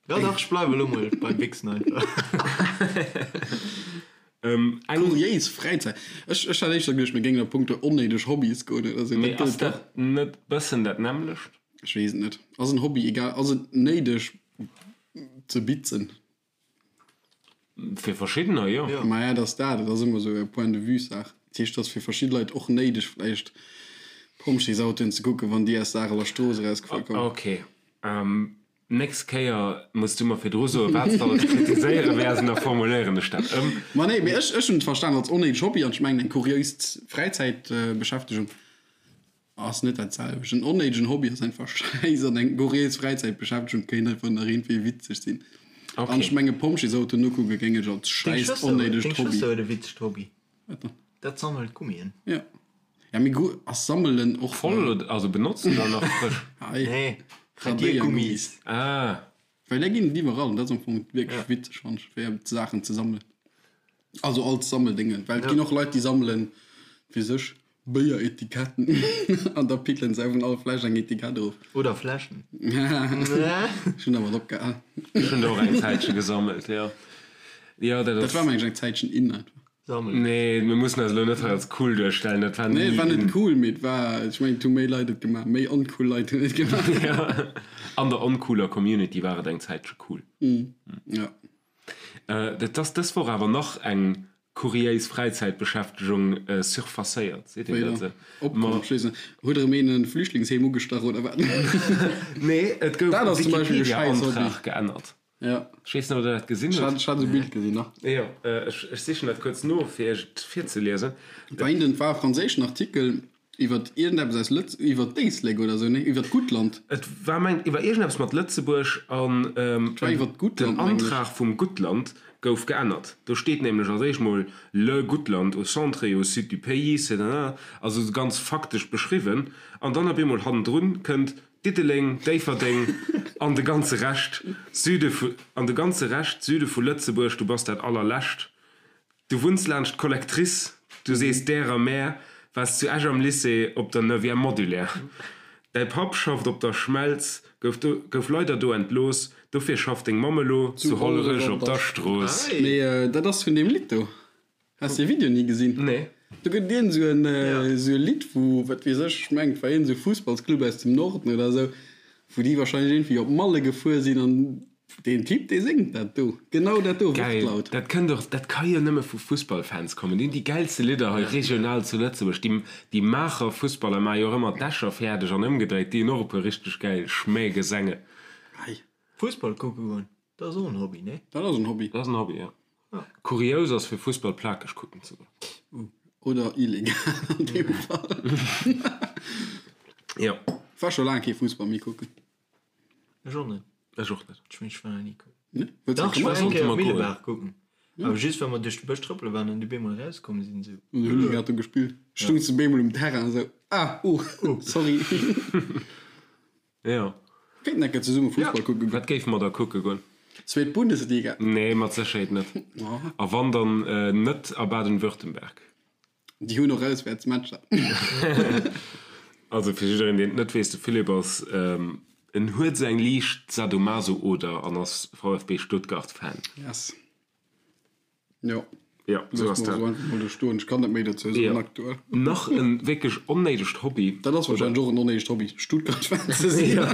Jo dach, ech bleiwe lo mol beim Wichsen einfach. Kuriéis Fräizäit. Ech ech hat éischter geduecht, mir géingen a punkto onnéideg Hobbys goen oder sou. Mee Dat ass gëllt och. dat net bëssen dat nämmlecht? Ech weess et net. Ass en Hobby egal, ass et néideg ze bitzen? Fir verschiddener, jo. Maja, et ass dat. Et ass ëmmer esou e Point de vue-Saach. Dat heescht, et ass fir verschidde Leit och néideg vläicht Pompjeesautoen ze kucken, wann déi aus der Areler Strooss erausgefuer kommen. Ok. Nächst Kéier muss du mer virdru soen, wat s de alles kritiséiere wäers, an da formuléieren ech dat ëm. Ma nee, mee ech, ech hunn et verstan als onnéideg Hobby an ech mengen eng kuriéis Fräizäitbeschäftegung ass net dat selwecht. En onnéidegen Hobby ass einfach schäiss an eng kuriéis Fräizäitbeschäftegung kéint einfach nach iergendwéi witzeg sinn. An ech menge Pompjeesautoen nokucke géing ech als Deng schäiss Schwëster huet, onnéidegt deng Hobby. Schwëster huet e witzegt Hobby. Wat dann? Dat sammelt Gummien. Jo. Ja, mee gu, ass sammelen och. Voll oder, also benotzt oder nach frësch? Hei. Nee, Radiergummis. Ah. Well där ginn et iwwerall an dat ass am Fong wierklech witzeg, fannen ech, fir Saachen ze sammelen. Also als Sammeldéngen, well et ginn och Leit, déi sammelen fir sech Béieretiketten an da pickelen se vun all Fläsch eng Etikett erof. Oder Fläschen. Ech hunn dermat opgehal. Ech hunn der och eng Zäitche gesammelt, jo. Jo, dat Dat ass. war mengen ech eng Zäitchen in einfach. Sammelen. Nee, mir mussen eis elo net hei als cool duerstellen, dat war Nee, ni et war net in. cool, mee et war, ech mengen, et hu méi Leit et gemaach, méi oncool Leit hunn et gemaach. Ja, an der oncooler Community war et eng Zäitche cool. Ja. Et ass dës Woch awer nach eng kuriéis Fräizäitbeschäftegung surfacéiert, seet een dat Wéi esou? Opkomm, ech weess net. Huet erëm een e Flüchtlingsheem ugestach oder wat? Nee, et gouf Dat e ass zum Beispill e schäiss Hobby. Wikipedia-Antrag geännert. Ja. Ech weess net, ob Der dat gesinn Ech hutt. hat, ech hat esou e Bild gesinn, nach. Jo, ech, ech sichen dat kuerz no, fir Iech et virzeliesen. Et war een, et war e franséischen Artikel iwwer iergendeppes aus Lëtz, iwwer d'Éislek oder esou, nee, iwwer d'Guttland. Et war, mengt, iwwer iergendeppes mat Lëtzebuerg an Et war iwwer den d'Guttland, mengen ech. Antrag vum Guttland gouf geännert. Do steet nämlech als éischt mol Le Guttland au centre et au sud du pays, c'est un, also esou ganz faktesch beschriwwen, an dann op eemol hannendrun kënnt Diddeleng, Déifferdeng an de ganze Rescht, Süde vu, an de ganze Rescht, Süde vu Lëtzebuerg, du bass dat allerlescht. Du wunns laanscht d'Collectrice, du sees därer mär, waars zu Esch am Lycée op der Neuvième Modulaire. Däi Papp schafft op der Schmelz, gouf do, gouf leider do entlooss, dofir schafft deng Mamm elo zu Hollerech op der Strooss. Mee dat ass vun deem Lidd do. Has de Video ni gesinn? Nee. Do gëtt et iergend sou en sou e Lidd wou, wat weess ech, ech mengen et war iergend sou Fussballsclub aus dem Norden oder sou, wou déi wahrscheinlech iergendwéi op Malle gefuer sinn an deen Typ dee séngt dat do, genau dat do, Geil, Wortlaut. dat kënnt och, dat ka jo nëmme vu Fussballfans kommen. Déi hunn déi gäilste Lidder hei regional zu Lëtzebuerg. Déi, déi Maacher Fussballer maache jo och ëmmer d'Escher fäerdeg an ëmgedréit, déi hunn och e puer richteg gäil Schmähgesänge. Hei. Fussball kucke goen, dat ass och en Hobby, nee? Dat ass en Hobby. Dat ass en Hobby, jo. Kurious ass fir Fussball plakeg kucken ze goen. Oder illegal an deem Fall. Jo. War scho laang kee Fussball méi kucken. Ech och net. Ech och net. Ech mengen ech war nach ni kucken. Nee? Wëlls Dach, ech war eng Kéier Sollte mer goen. Millebaach kucken. Awer just well mer duerch de Bësch trëppele waren an déi bemol erauskomm sinn esou. An hunn déi grad do gespillt. Stungs de bemol um Terrain esou, ah, oh, sorry. Jo. Kéinten eng Kéier zesumme Fussball kucke goen. Wat géife mer da kucke goen? Zweet Bundesliga. Nee, mat Sécherheet net. A wann, dann net a Baden-Württemberg. Déi hunn och Auswäertsmatcher. Also fir jiddereen, deen et net weess, de Philippe ass, en huet esou eng liicht Sadomaso-Oder an ass VfB Stuttgart-Fan. Yes. Jo. Jo, sou ass dat. Loosse mer esou einfach mol do stoen. Ech kann net méi dozou soen Jo. aktuell. Nach e wierklech onnéidegt Hobby. Dat ass wahrscheinlech och en onnéidegt Hobby, Stuttgart-Fan ze sinn. Jo.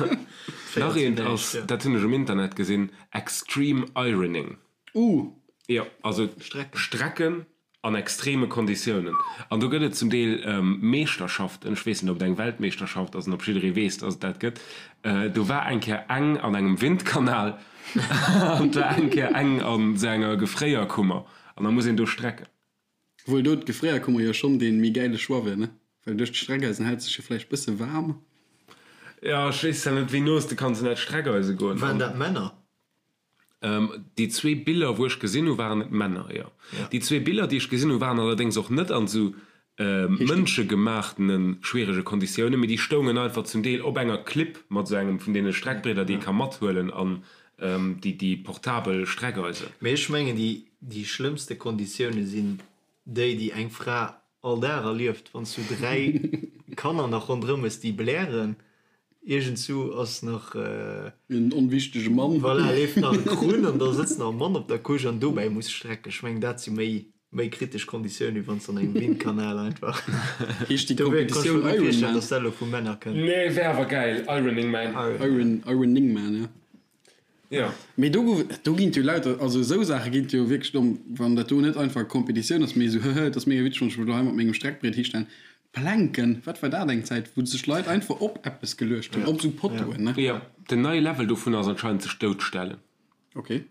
Nach eent ass, dat hunn ech um Internet gesinn, Extreme Ironing. Uh! Jo, also Strecken. Strecken An extreme Konditiounen. An do gëtt et zum Deel Meeschterschaften, ech weess net, ob et eng Weltmeeschterschaft ass an ob jidderee weess, dass et dat gëtt. Do war eng Kéier eng an engem Windkanal an et war eng Kéier eng an esou enger Gefréierkummer. An da muss een do strecken. Obwuel do d'Gefréierkummer jo schonn dee méi gäile Choix wier, ne? Well duerch d'Streckeisen hält sech jo vläicht bësse waarm. Jo, ech weess zwar net, wéi no s de kanns un dat Streckeise goen. Waren dat Männer? Déi zwee Biller wou ech gesinn hu waren et Männer, jo. Déi zwee Biller déi ech gesinn hu waren allerdéngs och net an esou mënschegemaachtene schwierege Konditiounen, mee déi stoungen einfach zum Deel op enger Klipp mat esou engem vun deene Streckbrieder déi ee ka mathuelen an déi déi portabel Streckeisen. Mee ech mengen déi déi schlëmmste Konditioune sinn déi déi eng Fra all Dag erlieft, wann s du 3 Kanner nach ronderëm hues déi blären, iergendsou ass nach. En onwichtege Mann. Voilà, leeft nach e Krunn an da sëtzt nach e Mann op der Couche an dobäi muss strecken. Ech mengen dat si méi méi kritesch Konditioune wéi wann s de an engem Windkanal einfach. Heescht déi Dofir kann ech Kompetitioun mer gutt Iron virstellen, Man? dass dat elo vu Männer kënnt. Nee, wär awer gäil, Ironing Man. Iron, Ironing Man, ja. Jo. Mee do gouf, do ginn et jo lauter, also esou Saache ginn et jo wierklech domm, wann dat do net einfach Competitioun ass, mee esou, hëhë, et ass mega witzeg, wann ech mech elo hei mat mengem Streckbriet histellen. Planken, wat war dat eng Zäit, wou sech Leit einfach op eppes geluecht hunn, op esou Pottoen, ne? Jo, den neie Level dovun ass anscheinend sech doutstellen. Ok.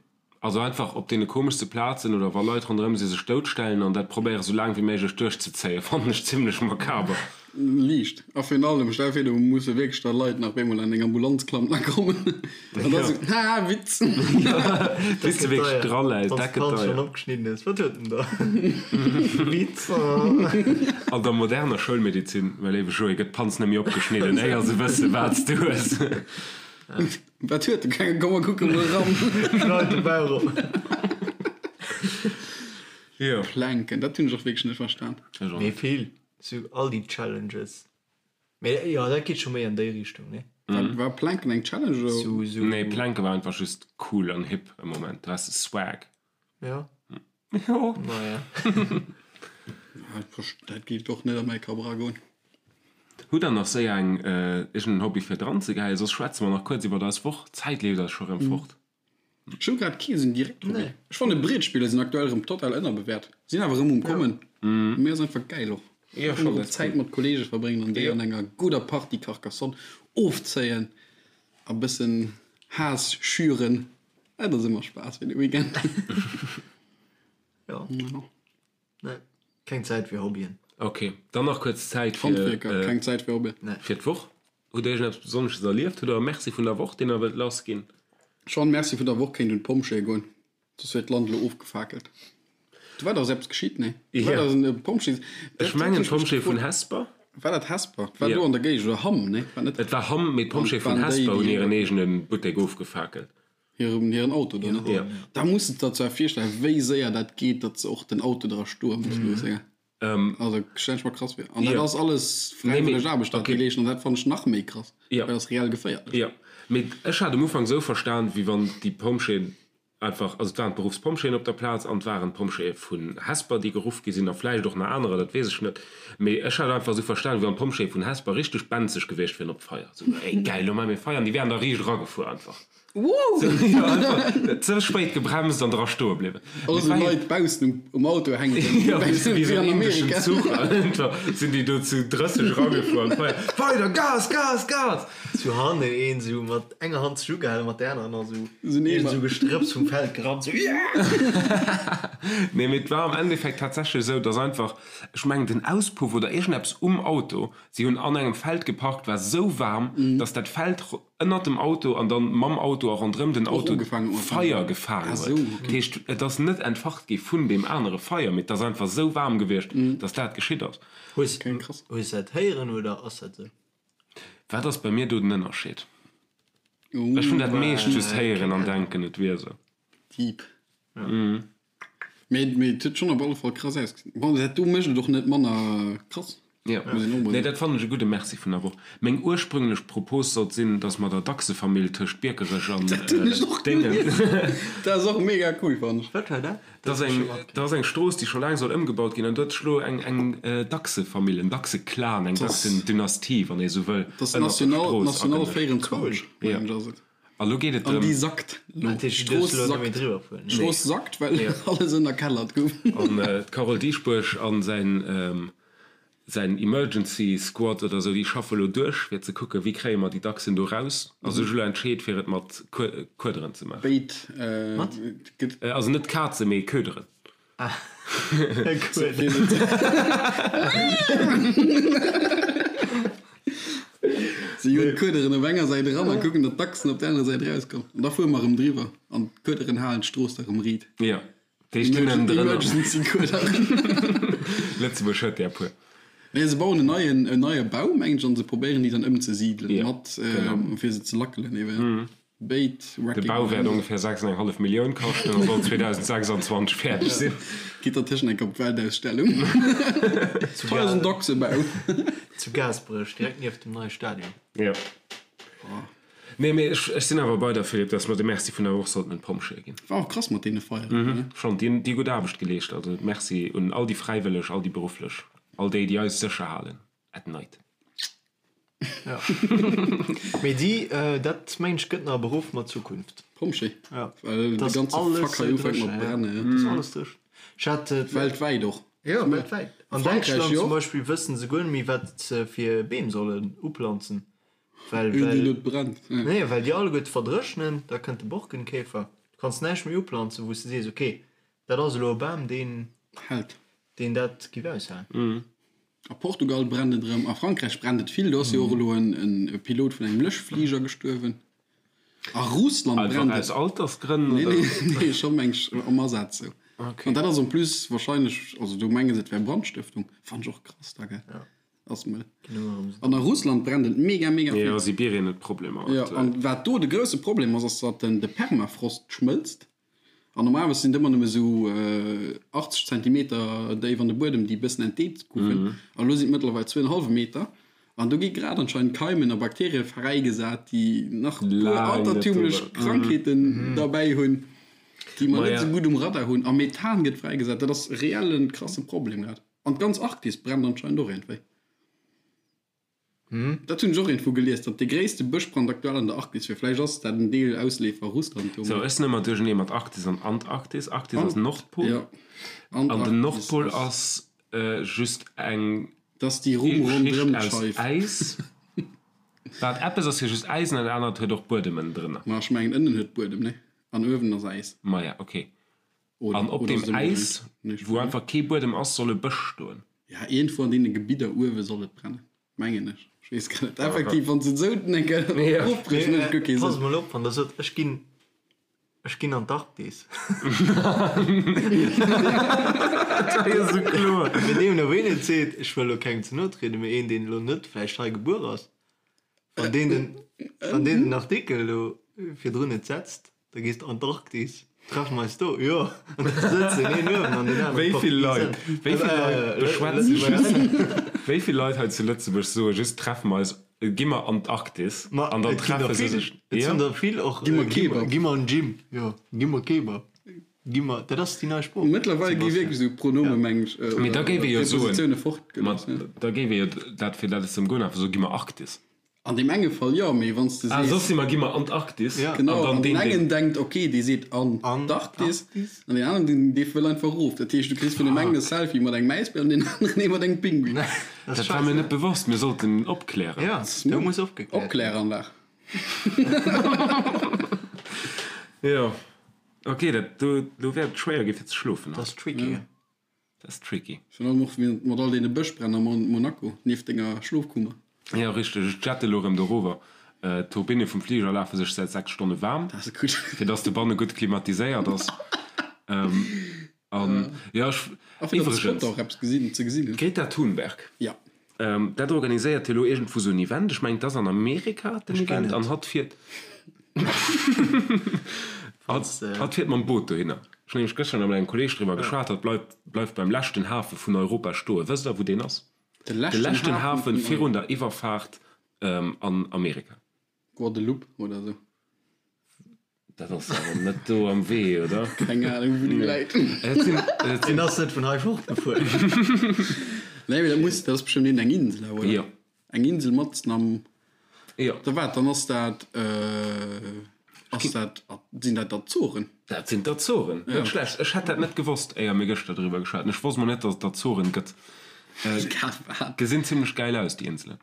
Also einfach op deene komeschste Plazen oder wa Leit ronderëm si sech doutstellen an dat probéiere sou laang wéi méiglech duerchzezéien, fannen ech zimlech makaber. Liicht. A virun allem, stell vir do musse wierklech da Leit nach op eemol an deng Ambulanz klammen a kommen an da sou, haha, Witz. Bis de wierklech draläis, Wann dat d'Panz gëtt deier. schonn opgeschnidden ass, wat huet en da? Witz. An der moderner Schoulmedizin, mäi léiwe Joé, gëtt d'Panz net méi opgeschnidden, éier se wësse wat s du hues. Wat huet de Kenge? Komm mer kucke mol eran. Schneit de Bauch op. Jo. Planken, dat hunn ech och wierklech net verstan. Ech och Mee net. vill, sou all déi Challenges. Mee jo, dat geet scho méi an déi Richtung, nee? War, war Planken eng Challenge oder? Sou, sou. Nee, Planke war einfach just cool an hip e Moment. Du has de Swag. Ja. Jo. Naja. Dat géif och net a mäi Kapp eragoen. Hutt der nach séier eng iergend en Hobby fir dran ze geheien? Soss schwätze mer nach kuerz iwwert eis Woch. D'Zäit leeft eis scho rëm fort. Ech hu grad kee sou direkt Hobby. Ech fanne Brietspiller sinn aktuell rëm total ënnerbewäert. Sinn awer rëm um kommen. Mee ass einfach gäil och. Einfach erëm Zäit mat Kollege verbréngen an déi an enger gudder Partie Carcassonne ofzéien a bëssen Haass schüren. Dat ass ëmmer Spaass fir de Weekend. Jo. Nee, keng Zäit fir Hobbyen. Ok, dann nach kuerz Zäit fir. Handwierker, keng Zäit fir Hobbyen. Nee. Fir d'Woch. Hutt Dir iergendeppes Besonnesches erlieft? Hutt Der e Merci vun der Woch, deen Der wëllt lassginn? Schon, Merci vun der Woch kéint un d'Pompjeeë goen, soss wier d'Land elo ofgefakelt. Do war dach eppes geschitt, nee? Do war dach en Pompjees. Ech mengen d'Pompjeeë vun Hesper. War dat Hesper? War do an der Géigend oder Hamm, nee? War net. Et war Hamm, mee d'Pompjeeë vun Hesper hunn hiren eegene Buttek ofgefakelt. Hiren, hiren Auto do, ne? Jo. Da muss de der zwar virstellen, wéi séier dat geet, datt se och den Auto dra stoe muss loossen, gell? Also stellen ech mer krass vir. An dat ass alles fräiwëlleg Aarbecht, dat déi leeschten, an dat fannen ech nach méi krass, well dat ass reell geféierlech. Jo, mee ech hat um Ufank esou verstan, wéi wann déi Pompjeeën einfach, also et waren d'Beruffspompjeeën op der Plaz an et waren d'Pompjeeë vun Hesper, déi geruff gi sinn a vläicht och nach anerer, dat weess ech net. Mee ech hat einfach esou verstan, wéi wann d'Pompjeeë vun Hesper richteg benzeg gewiescht wieren op d'Feier. Esou, ey gäil, elo maache mir Feier an déi wären da riicht eragefuer einfach. Wouh! Jo, einfach ze spéit gebremst an dra stoe bliwwen. All esou Leit baussen um Auto hänken, Jo, wéi wéi esou an en indeschen Amerika. Zuch einfach sinn déi do zu 30 eragefuer an d'Feier, Weider, Gas, Gas, Gas! Zu hannen een esou mat enger Hand sech ugehalen, mat der anerer nach esou Esou en iergend Eemer. esou Gestrëpps vum Feld gerannt, esou yeah! Nee, mee et war am Endeffekt tatsächlech esou, dass einfach, ech mengen den Auspuff oder iergendeppes um Auto, si hunn an engem Feld geparkt, war esou waarm, dass dat Feld ënnert dem Auto an dann mam Auto a ronderëm den Och Auto ugefaangen huet. Feier gefaangen Ah huet. sou, okay. Dat heescht, et ass net entfacht gi vun deem anere Feier, mee et ass einfach esou waarm gewiescht, dass dat geschitt ass. Hues Okay, krass. hues dat héieren oder ass dat sou? Wat ass bei mir do den Ënnerscheed? Ech hunn dat meescht just héieren an denken, et wier esou. Deep. Mee mee et huet schonn op alle Fall krass ausgesinn. Bon, dat do mécht et och net manner krass. Jo, Muss een och mol nee, soen. dat fannen ech e gudde Merci vun der Woch. Meng ursprünglech Propos sollt sinn, dass mer der Dachsefamill tëscht Biekerech an Dat hunn ech och Déngen. gelies. Dat ass och mega cool, fannen ech. Wat war dat? Dat ass eng, dat ass eng Strooss, déi scho laang soll ëmgebaut ginn, an do huet sech elo eng, eng Dachsefamill, en Dachseklan, eng Dachsendynastie, wann ee sou wëll, Dat ass ënnert der National, Strooss National agenëscht. 24, mengen ech, ass et. A lo geet et An déi drëm. sackt elo. Dat heescht, du D'Strooss duerfs elo net méi sackt. driwwer fueren? D'Strooss sackt, well alles ënnerkellert gouf. An d'Carole Dieschbourg a säin, säin Emergency Squad oder sou, déi schaffe lo duerch, fir ze kucken, wéi kréie mer déi Dachsen do raus. A sech elo entscheet, fir et mat Kuederen ze maachen. Béid gëtt. Also net Kazen, mee Köderen. Si hunn d'Kuederen op enger Säit eran a kucken, datt d'Dachsen op der anerer Säit erauskommen. An da fuere mer erëm driwwer an d'Kuederen halen d'Strooss da erëm riit. Jo, déi stinn ënnendrënner. Emergency Kuederen. Lëtzebuerg huet där e puer. Nee, se bauen en neien, en neie Bau, mengen ech, an se probéieren déi dann ëmzesidelen, Ja, mat, genau. fir se ze lackelen eben. Béid De Wrecking Bau wäert Ball. ongefähr 6,5 Millioun kaschten a soll 2026 fäerdeg sinn. Geet dertëschent eng op d'Weltausstellung. Hei ass en Dachsebau. Zu Gaasperech, direkt nieft dem neie Stadion. Jo. Nee, mee ech, ech sinn awer bei der, Philippe, dass mer de Merci vun der Woch sollten un d'Pompjeeë ginn. War och krass mat deene Feieren, ne? Schonn, déi hunn déi gutt Aarbecht geleescht. Also Merci un all déi Fräiwëlleg, all déi Berufflech, all déi, déi eis sécher halen at night. Ja. Mee déi, dat mengen ech gëtt nach e Beruff mat Zukunft. Pompjee? Ja. Well de Dass ganze alles Fuck hei sou ufänkt mat dréchen, ja. brennen, ja. Dass alles dréchen. Ech hat. Weltwäit och. Jo, weltwäit. An Frankräich Däitschland jo zum och. Beispill wëssen se guer net méi wat se fir Beem sollen uplanzen. Well, Een, deen well, net brennt, ja. nee, well déi alleguerte verdréchnen, da kënnt de Borkenkäfer. Du kanns näischt méi uplanzen, wou s de sees, okay, dat ass elo e Bam, deen, Hält. deen dat giff aushalen. A Portugal brennt et erëm, a Frankräich brennt et vill. Do ass jo och elo en Pilot vun engem Löschfliger gestuerwen. A Russland Einfach brennt aus et. Altersgrënn, Nee, oder? nee, nee, scho meng ech am Asaz sou. Okay. An dat ass en plus wahrscheinlech, also do menge se et wär Brandstëftung. Fannt ech och krass da, gell? Ass mëll. An a Russland brennt et mega, mega vill. Jo, Sibirien huet Problemer Jo, aktuell. an wat do de grousse Problem ass, ass datt den de Permafrost schmëlzt. An normalerweis sinn et ëmmer nëmme sou 80 Zentimeter déif an de Buedem, déi e bëssen entdeet goufen. An elo sinn et mëttlerweil zwou en hallwe Meter. An do gi grad anscheinend Keimen a Bakterie fräigesat, déi nach e puer Laang net altertümlech drüber. Krankheeten derbäi hunn. Déi mer net esou gutt um Radar hunn. A Methan gëtt fräigesat. Dat ass reell en krasse Problem grad. An d'ganz Arktis brennt anscheinend och iergendwéi. Dat hunn ech och iergendwou gelies, datt dee gréisste Bëschbrand aktuell an der Arktis wier. Vläicht ass dat en Deel Ausleefer Russland do. Sou, ech sinn ëmmer duerchernee mat Arktis an Antarktis. Arktis ass Nordpol. Jo, An den Antarktis Nordpol ass. ass just eng Dat ass déi Rumm Schicht ronderëm aus d'Scheif. Äis. Wat eppes ass jo just Äis an dat anert huet och Buedemen drënner. Ma ech mengen ënnen huet Buedem, nee? An uewen ass Äis. Maja, ok. Oder, An op oder deem ass et Äis, ëmgedréint? Nee, ech wou weess net. einfach kee Buedem ass, soll e Bësch stoen. Ja, iergendwou an deene Gebidder uewe soll et brennen. Mengen ech. Ech weess grad net. Effektiv, wann s de et esou eng Kéier ofbrichs, mécht et guer kee Pass Sënn. mol op, wann der sot, ech ginn, ech ginn an d'Arktis. Dat war jo esou kloer. Mee deemno ween et seet, ech wëll elo kengem ze no trieden, mee een, deen elo net vläicht hei gebuer ass, wann deen den, wann deen den Artikel elo virdrun net setzt, Da gees de an d'Arktis. Treffe mer eis do? Jo. An da sëtzen een uewen an deen aneren Wéi op vill der Leit, wéi vill Leit beschwätzen just, wéi vill Leit hei zu Lëtzebuerg soe just treffe mer eis, gi mer an d'Arktis Ma an dann et ginn der treffe se vill. sech. Et Jo. sinn der vill och. Gi mer Kebab. Gi mer an d'Gym. Jo, gi mer Kebab. Gi mer, dat ass déi nei Sprooch. Mëttlerweil gi wierklech esou Pronome, meng ech, Mee da oder géif ee jo soen, Prepositioune ma fortgelooss. da géif ee jo dat, fir dat et ze ëmgoen, einfach soe gi mer Arktis. An deem enge Fall jo, mee wann s de Ah, sees. soss si mer, gi mer Antarktis. Ja. Genau, An dann an deen deen, deen. engen denkt, ok, dee seet Antarktis, an deen aneren, deen, dee wëll einfach erof. Dat heescht, du kriss vun deem engen e Selfie mat engem Äisbär an deen aneren ee mat engem Pinguin. Dat Dat war mir net bewosst, mir sollten opklären. Ja, do muss opgekläert ginn. Opkläranlag. Jo, ok, dat do, do wäert et schwéier gi fir ze schlofen Dat haut. ass tricky. Dat ass tricky. Virun allem och mat all deene Bëschbränn a Monaco nieft denger Schlofkummer. Jo, richteg. Ech jette elo erëm dorower. D'Turbinne vum Fliger lafe sech säit 6 Stonne waarm, fir dass de banne gutt klimatiséiert ass. An jo, ech. A fir datt d'Spotter och eppes gesinn, ze gesinn hunn. D'Greta Thunberg. Ja. Dat organiséiert jo elo iergendwou sou en Event. Ech mengen, et ass an Amerika den Event. An hatt fiert. Hatt fiert mam Boot dohinner. Ech hunn nämlech gëschter nach mat engem Kolleeg driwwer geschwat. Hatt bleift bleift beim leschten Hafe vun Europa stoen. Wësst Der, wou deen ass? De De leschten Hafe vun virun der Iwwerfaart an Amerika. Guadeloupe oder sou. Dat ass awer net do am Wee, oder? Keng Ahnung, wou déi läit. Et sinn, et sinn. Deen ass net vun hei fortgefuer. Nee, mee dat muss, dat ass bestëmmt iergend eng Insel awer, oder? Jo. Eng Insel matzen am. Jo. Da wat, dann ass dat, ass dat, sinn dat d'Azoren? Dat sinn d'Azoren. Net schlecht. Ech hätt dat net gewosst, éier mir gëschter driwwer geschwat hunn. Ech wosst mol net, datt et d'Azoren gëtt. Gesinn zimlech gäil aus, déi Inselen.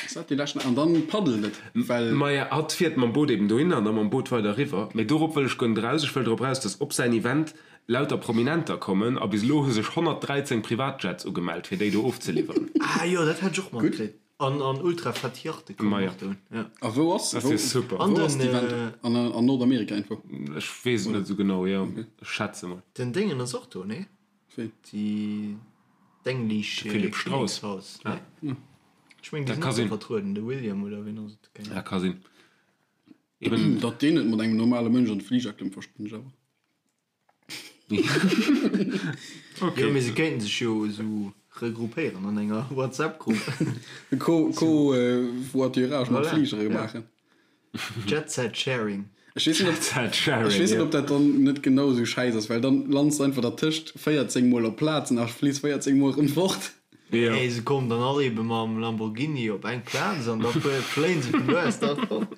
Ass dat déi leschten? An dann paddelt et, well. Maja, hatt fiert mam Boot eben dohinner an da mam Boot weider eriwwer. Mee dorop wëll ech guer net eraus. Ech wëll drop eraus, dass op säin Event lauter Prominenter kommen a bis elo hu sech 113 Privatjets ugemellt, fir déi do ofzeliwweren. Ah jo, dat hat ech och matkritt. An an ultra fett Yachte kommen Maja. och dohin, jo. A wou ass, Dat ass wou, jo super. wou An ass den, d'Event? An an Nordamerika irgendwou? Ech weess et net esou genau, jo, ech schätze mol. Den Déngen ass och do, nee? Wéi? Déi d'English De Philipp Strauss. Kinnekshaus, Ah. nee? Ech mengen, déi Dat sinn ka och do sinn. vertrueden, de William oder wien ass et? Keng Dat Ahnung. ka sinn. Eben. Datt deen net mat engem normale Mënsch an de Fliger klëmmt, verstinn ech awer. Okay. Jo, mee se kéinten sech jo esou regroupéieren an enger WhatsApp-Grupp. Co, Co-Voiturage mat Voilà, Fligere ja. maachen. Jet Set Sharing. Ech weess net, ob, Jet Sharing, ech weess net, jo. ob dat dann net genau esou schäiss ass, well dann lands de einfach dertëscht 14 mol op Plazen a fliss 14 mol erëm fort. Jo. Hey, se kommen dann all ebe mam Lamborghini op eng Plaz an da fléien se vun do aus da fort.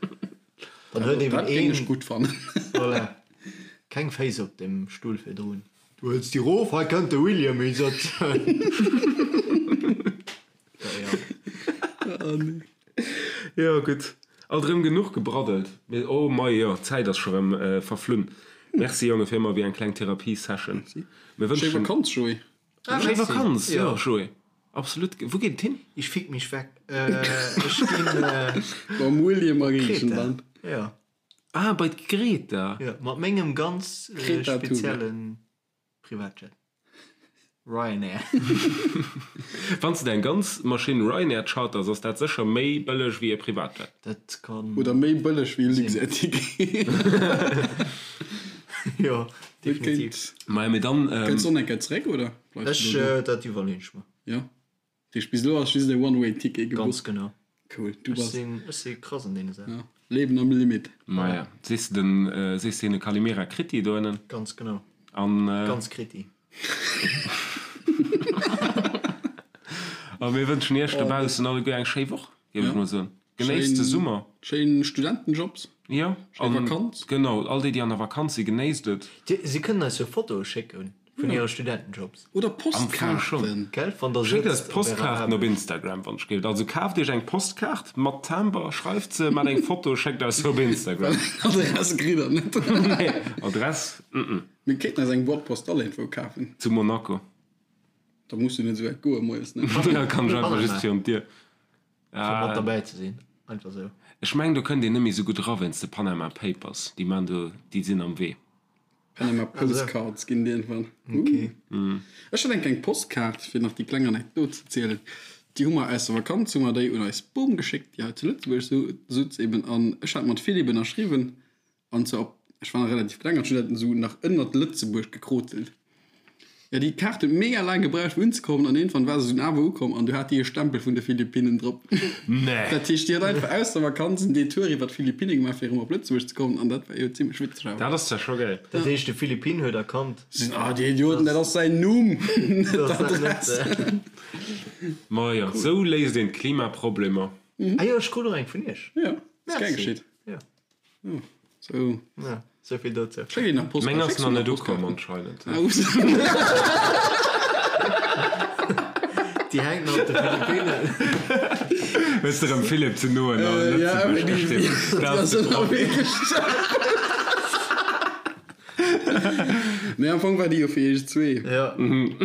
Dann huet eben Dat géing een ech gutt fannen. Voilà. Keng Féiss op dem Stull virdrun. Du hëls déi rof, hei kënnt de William hie sëtzen. Oh nee. Jo gutt, alt erëm genuch gebraddelt. Mee oh mei jo, d'Zäit ass scho rëm verflunn. Merci Jonge fir ëmmer wéi eng kleng Therapie-Session. Mir Schéi wënschen. Vakanz Joé. Schéi Vakanz, jo Jo. Joé, absolut. Wou geet et hin? Ich fick mich weg. Ech ginn Mam William a Griechenland. Kreta. Jo. Ah, bei d'Greta. Jo, mat mengem ganz Greta Thunberg. speziellen Privatjet. Ryanair. Wann s de deng ganz Maschinn Ryanair charters, ass dat sécher méi bëlleg wéi e Privatjet. Dat kann. Oder méi bëlleg wéi e Luxair-Ticket. Jo, definitiv. Maja, mee dann. Kënns du och eng Kéier zeréck, oder bleifs Ech, du do? dat iwwerleeën ech mer. Jo. Dat heescht, bis elo ass just e One-Way-Ticket gebucht. Ganz genau. Cool. Du Ech bass. sinn, ech si krass an deene Saachen. Ja. Leben am Limit. Maja, sees de den, sees de hinne Kalimera Kriti do ënnen? Ganz genau. An. Ganz Kriti. A mir wënschen iech dobaussen alleguer eng schéi Woch, géif ech mol soen. Genéisst de Summer. Schéin Studentenjobs. Jo. Schéi Vakanz. Genau, all déi, déi an der Vakanz sinn, genéisst et. Si kënnen eis jo Fotoe schécke vun hire Studentenjobs. Oder Postkaarten. Gell, wann der Schéckt eis sëtzt op ärer Postkaarten op Aarbecht. Instagram, wann ech géift. Also kaaft iech eng Postkaart mat Timber, schreift se, maacht eng Foto, schéckt eis se op Instagram. Adress kritt der net. Nee, Adress, mm. Mir kéinten eis eng Boîte postale iergendwou kafen. Zu Monaco. Da muss du net esou wäit goe moies, ne? Da kann ech einfach just virun d'Dier. Fir mat derbäi ze sinn, einfach esou. Ech mengen, do kënnt een net méi esou gutt era wéinst de Panama Papers. Déi man do, déi sinn am Wee. Panama Postcards ginn et iergendwann. Ech hat eng kleng Postkaart, fir nach déi kleng Anekdot ze zielen. Déi hu mer aus der Vakanz, hu mer déi un eis Bom geschéckt, déi hei zu Lëtzebuerg sutz eben. An ech hat mat Philippe ënnerschriwwen. An zwar op, ech war nach relativ kleng an ech hunn dat esou nach ënnert Lëtzebuerg gekrotelt. Jo, déi Kaart huet mega laang gebraucht fir unzekommen an iergendwann war se dunn awer ukomm an du hat déi e Stempel vun de Philippinnen drop. Nee. Dat heescht, déi hat einfach aus der Vakanz en Detour iwwer d'Philippinne gemaach fir erëm op Lëtzebuerg ze kommen an dat war jo zimmlech witzeg awer. Dat ass zwar scho gäil. Dat heescht, de Philippine huet erkannt. Si sinn, ah, déi Idioten, dat ass säin Numm, net d'Adress. Majo, esou léist een d'Klimaproblemer. Ah jo, ech krut och eng vun iech. Jo, ass gär Merci. geschitt. Jo. So. Ja, sou vill dozou. Schéck een nach Meng Postkaart. ass nach net ukomm anscheinend. Ah, ups. Déi hänkt nach op de Philippinen. Hues de rëm Philipp ze no an Äh, ja, Lëtzebuerg déi, gestinn. déi ass ënnerwee gestorben. Nee, am Fong war déi jo fir iech zwee. Ja. Um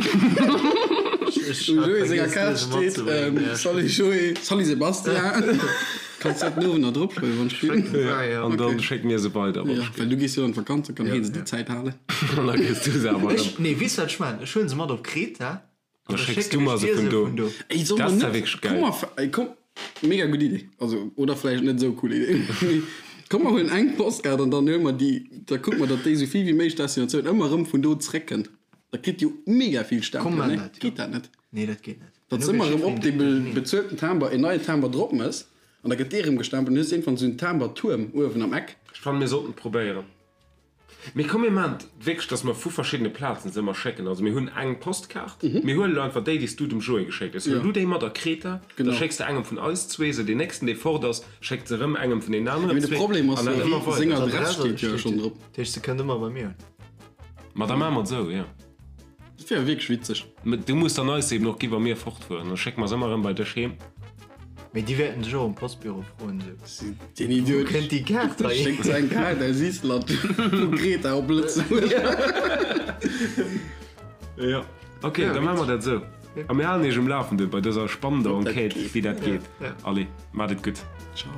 Joé senger Kaart steet, ähm, Salut Joé, salut Sebastian. Kanns dat den Owend nach drop schreiwen, wann ech will. Ja, an dann schécke mir se weider. Ja, well du gees jo an d'Vakanz, da kann hien se déi Zäit halen. An da kriss du se awer erëm. Nee, weess du wat ech maachen? Ech huelen se mat op Kreta Da schécks du mer se vun do. Ey, soll Dat mer ass ja net, wierklech komm geil. mer, ey, komm, mega gutt Idee. Also, oder vläicht net esou cool Idee. Mee komm mer huelen eng Postkaart an dann huele mer déi, da kucke mer, datt déi esou vill wéi méiglech Destinatioun ëmmer erëm vun do zréckkënnt. Da kritt jo mega vill Komm, Stempelen, man ne? dat, jo. Geet dat net? Nee, dat geet net. Datt s ëmmer erëm op dee bezuelten Timber een neien Timber drop mëss an da gëtt dee erëm gestempelt an du hues iergendwann esou en Timbertuerm uewen am Eck. Ech fannen mir sollten et probéieren. Mee komm mir maachen et wierklech, dass mer vu verschiddene Plazen se ëmmer schécken. Also mir hunn eng Postkaart, mir huelen elo einfach déi, déi s du dem Joé geschéckt hues. Huel du déi mat a Kreta, da schécks de engem vun eis zwee se. Deen nächsten, dee fort ass, schéckt se erëm engem vun deenen aneren Mee de zwee. Problem ass An dat jo, ëmmer seng weider. Adress steet jo schonn drop. Dat heescht, se kënnt ëmmer bei mir un. Ma da maache mer et esou, jo. Dat wier wierklech witzeg. Mä du muss dann eis se eben och gi wa mir fortfueren. Da schécke mer se ëmmer erëm bei dech heem. Mee déi wäerten dech och um Postbüro froen, esou, Den Idiot. Wou kënnt déi Kaart hei Schéckt se eng Kaart aus Island vu Kreta op Lëtzebuerg. Jo, ok, da maache mer dat esou. A mir halen iech um Lafende bei dëser spannender Enquête, wéi dat geet. Allez, maacht et gutt. Ciao.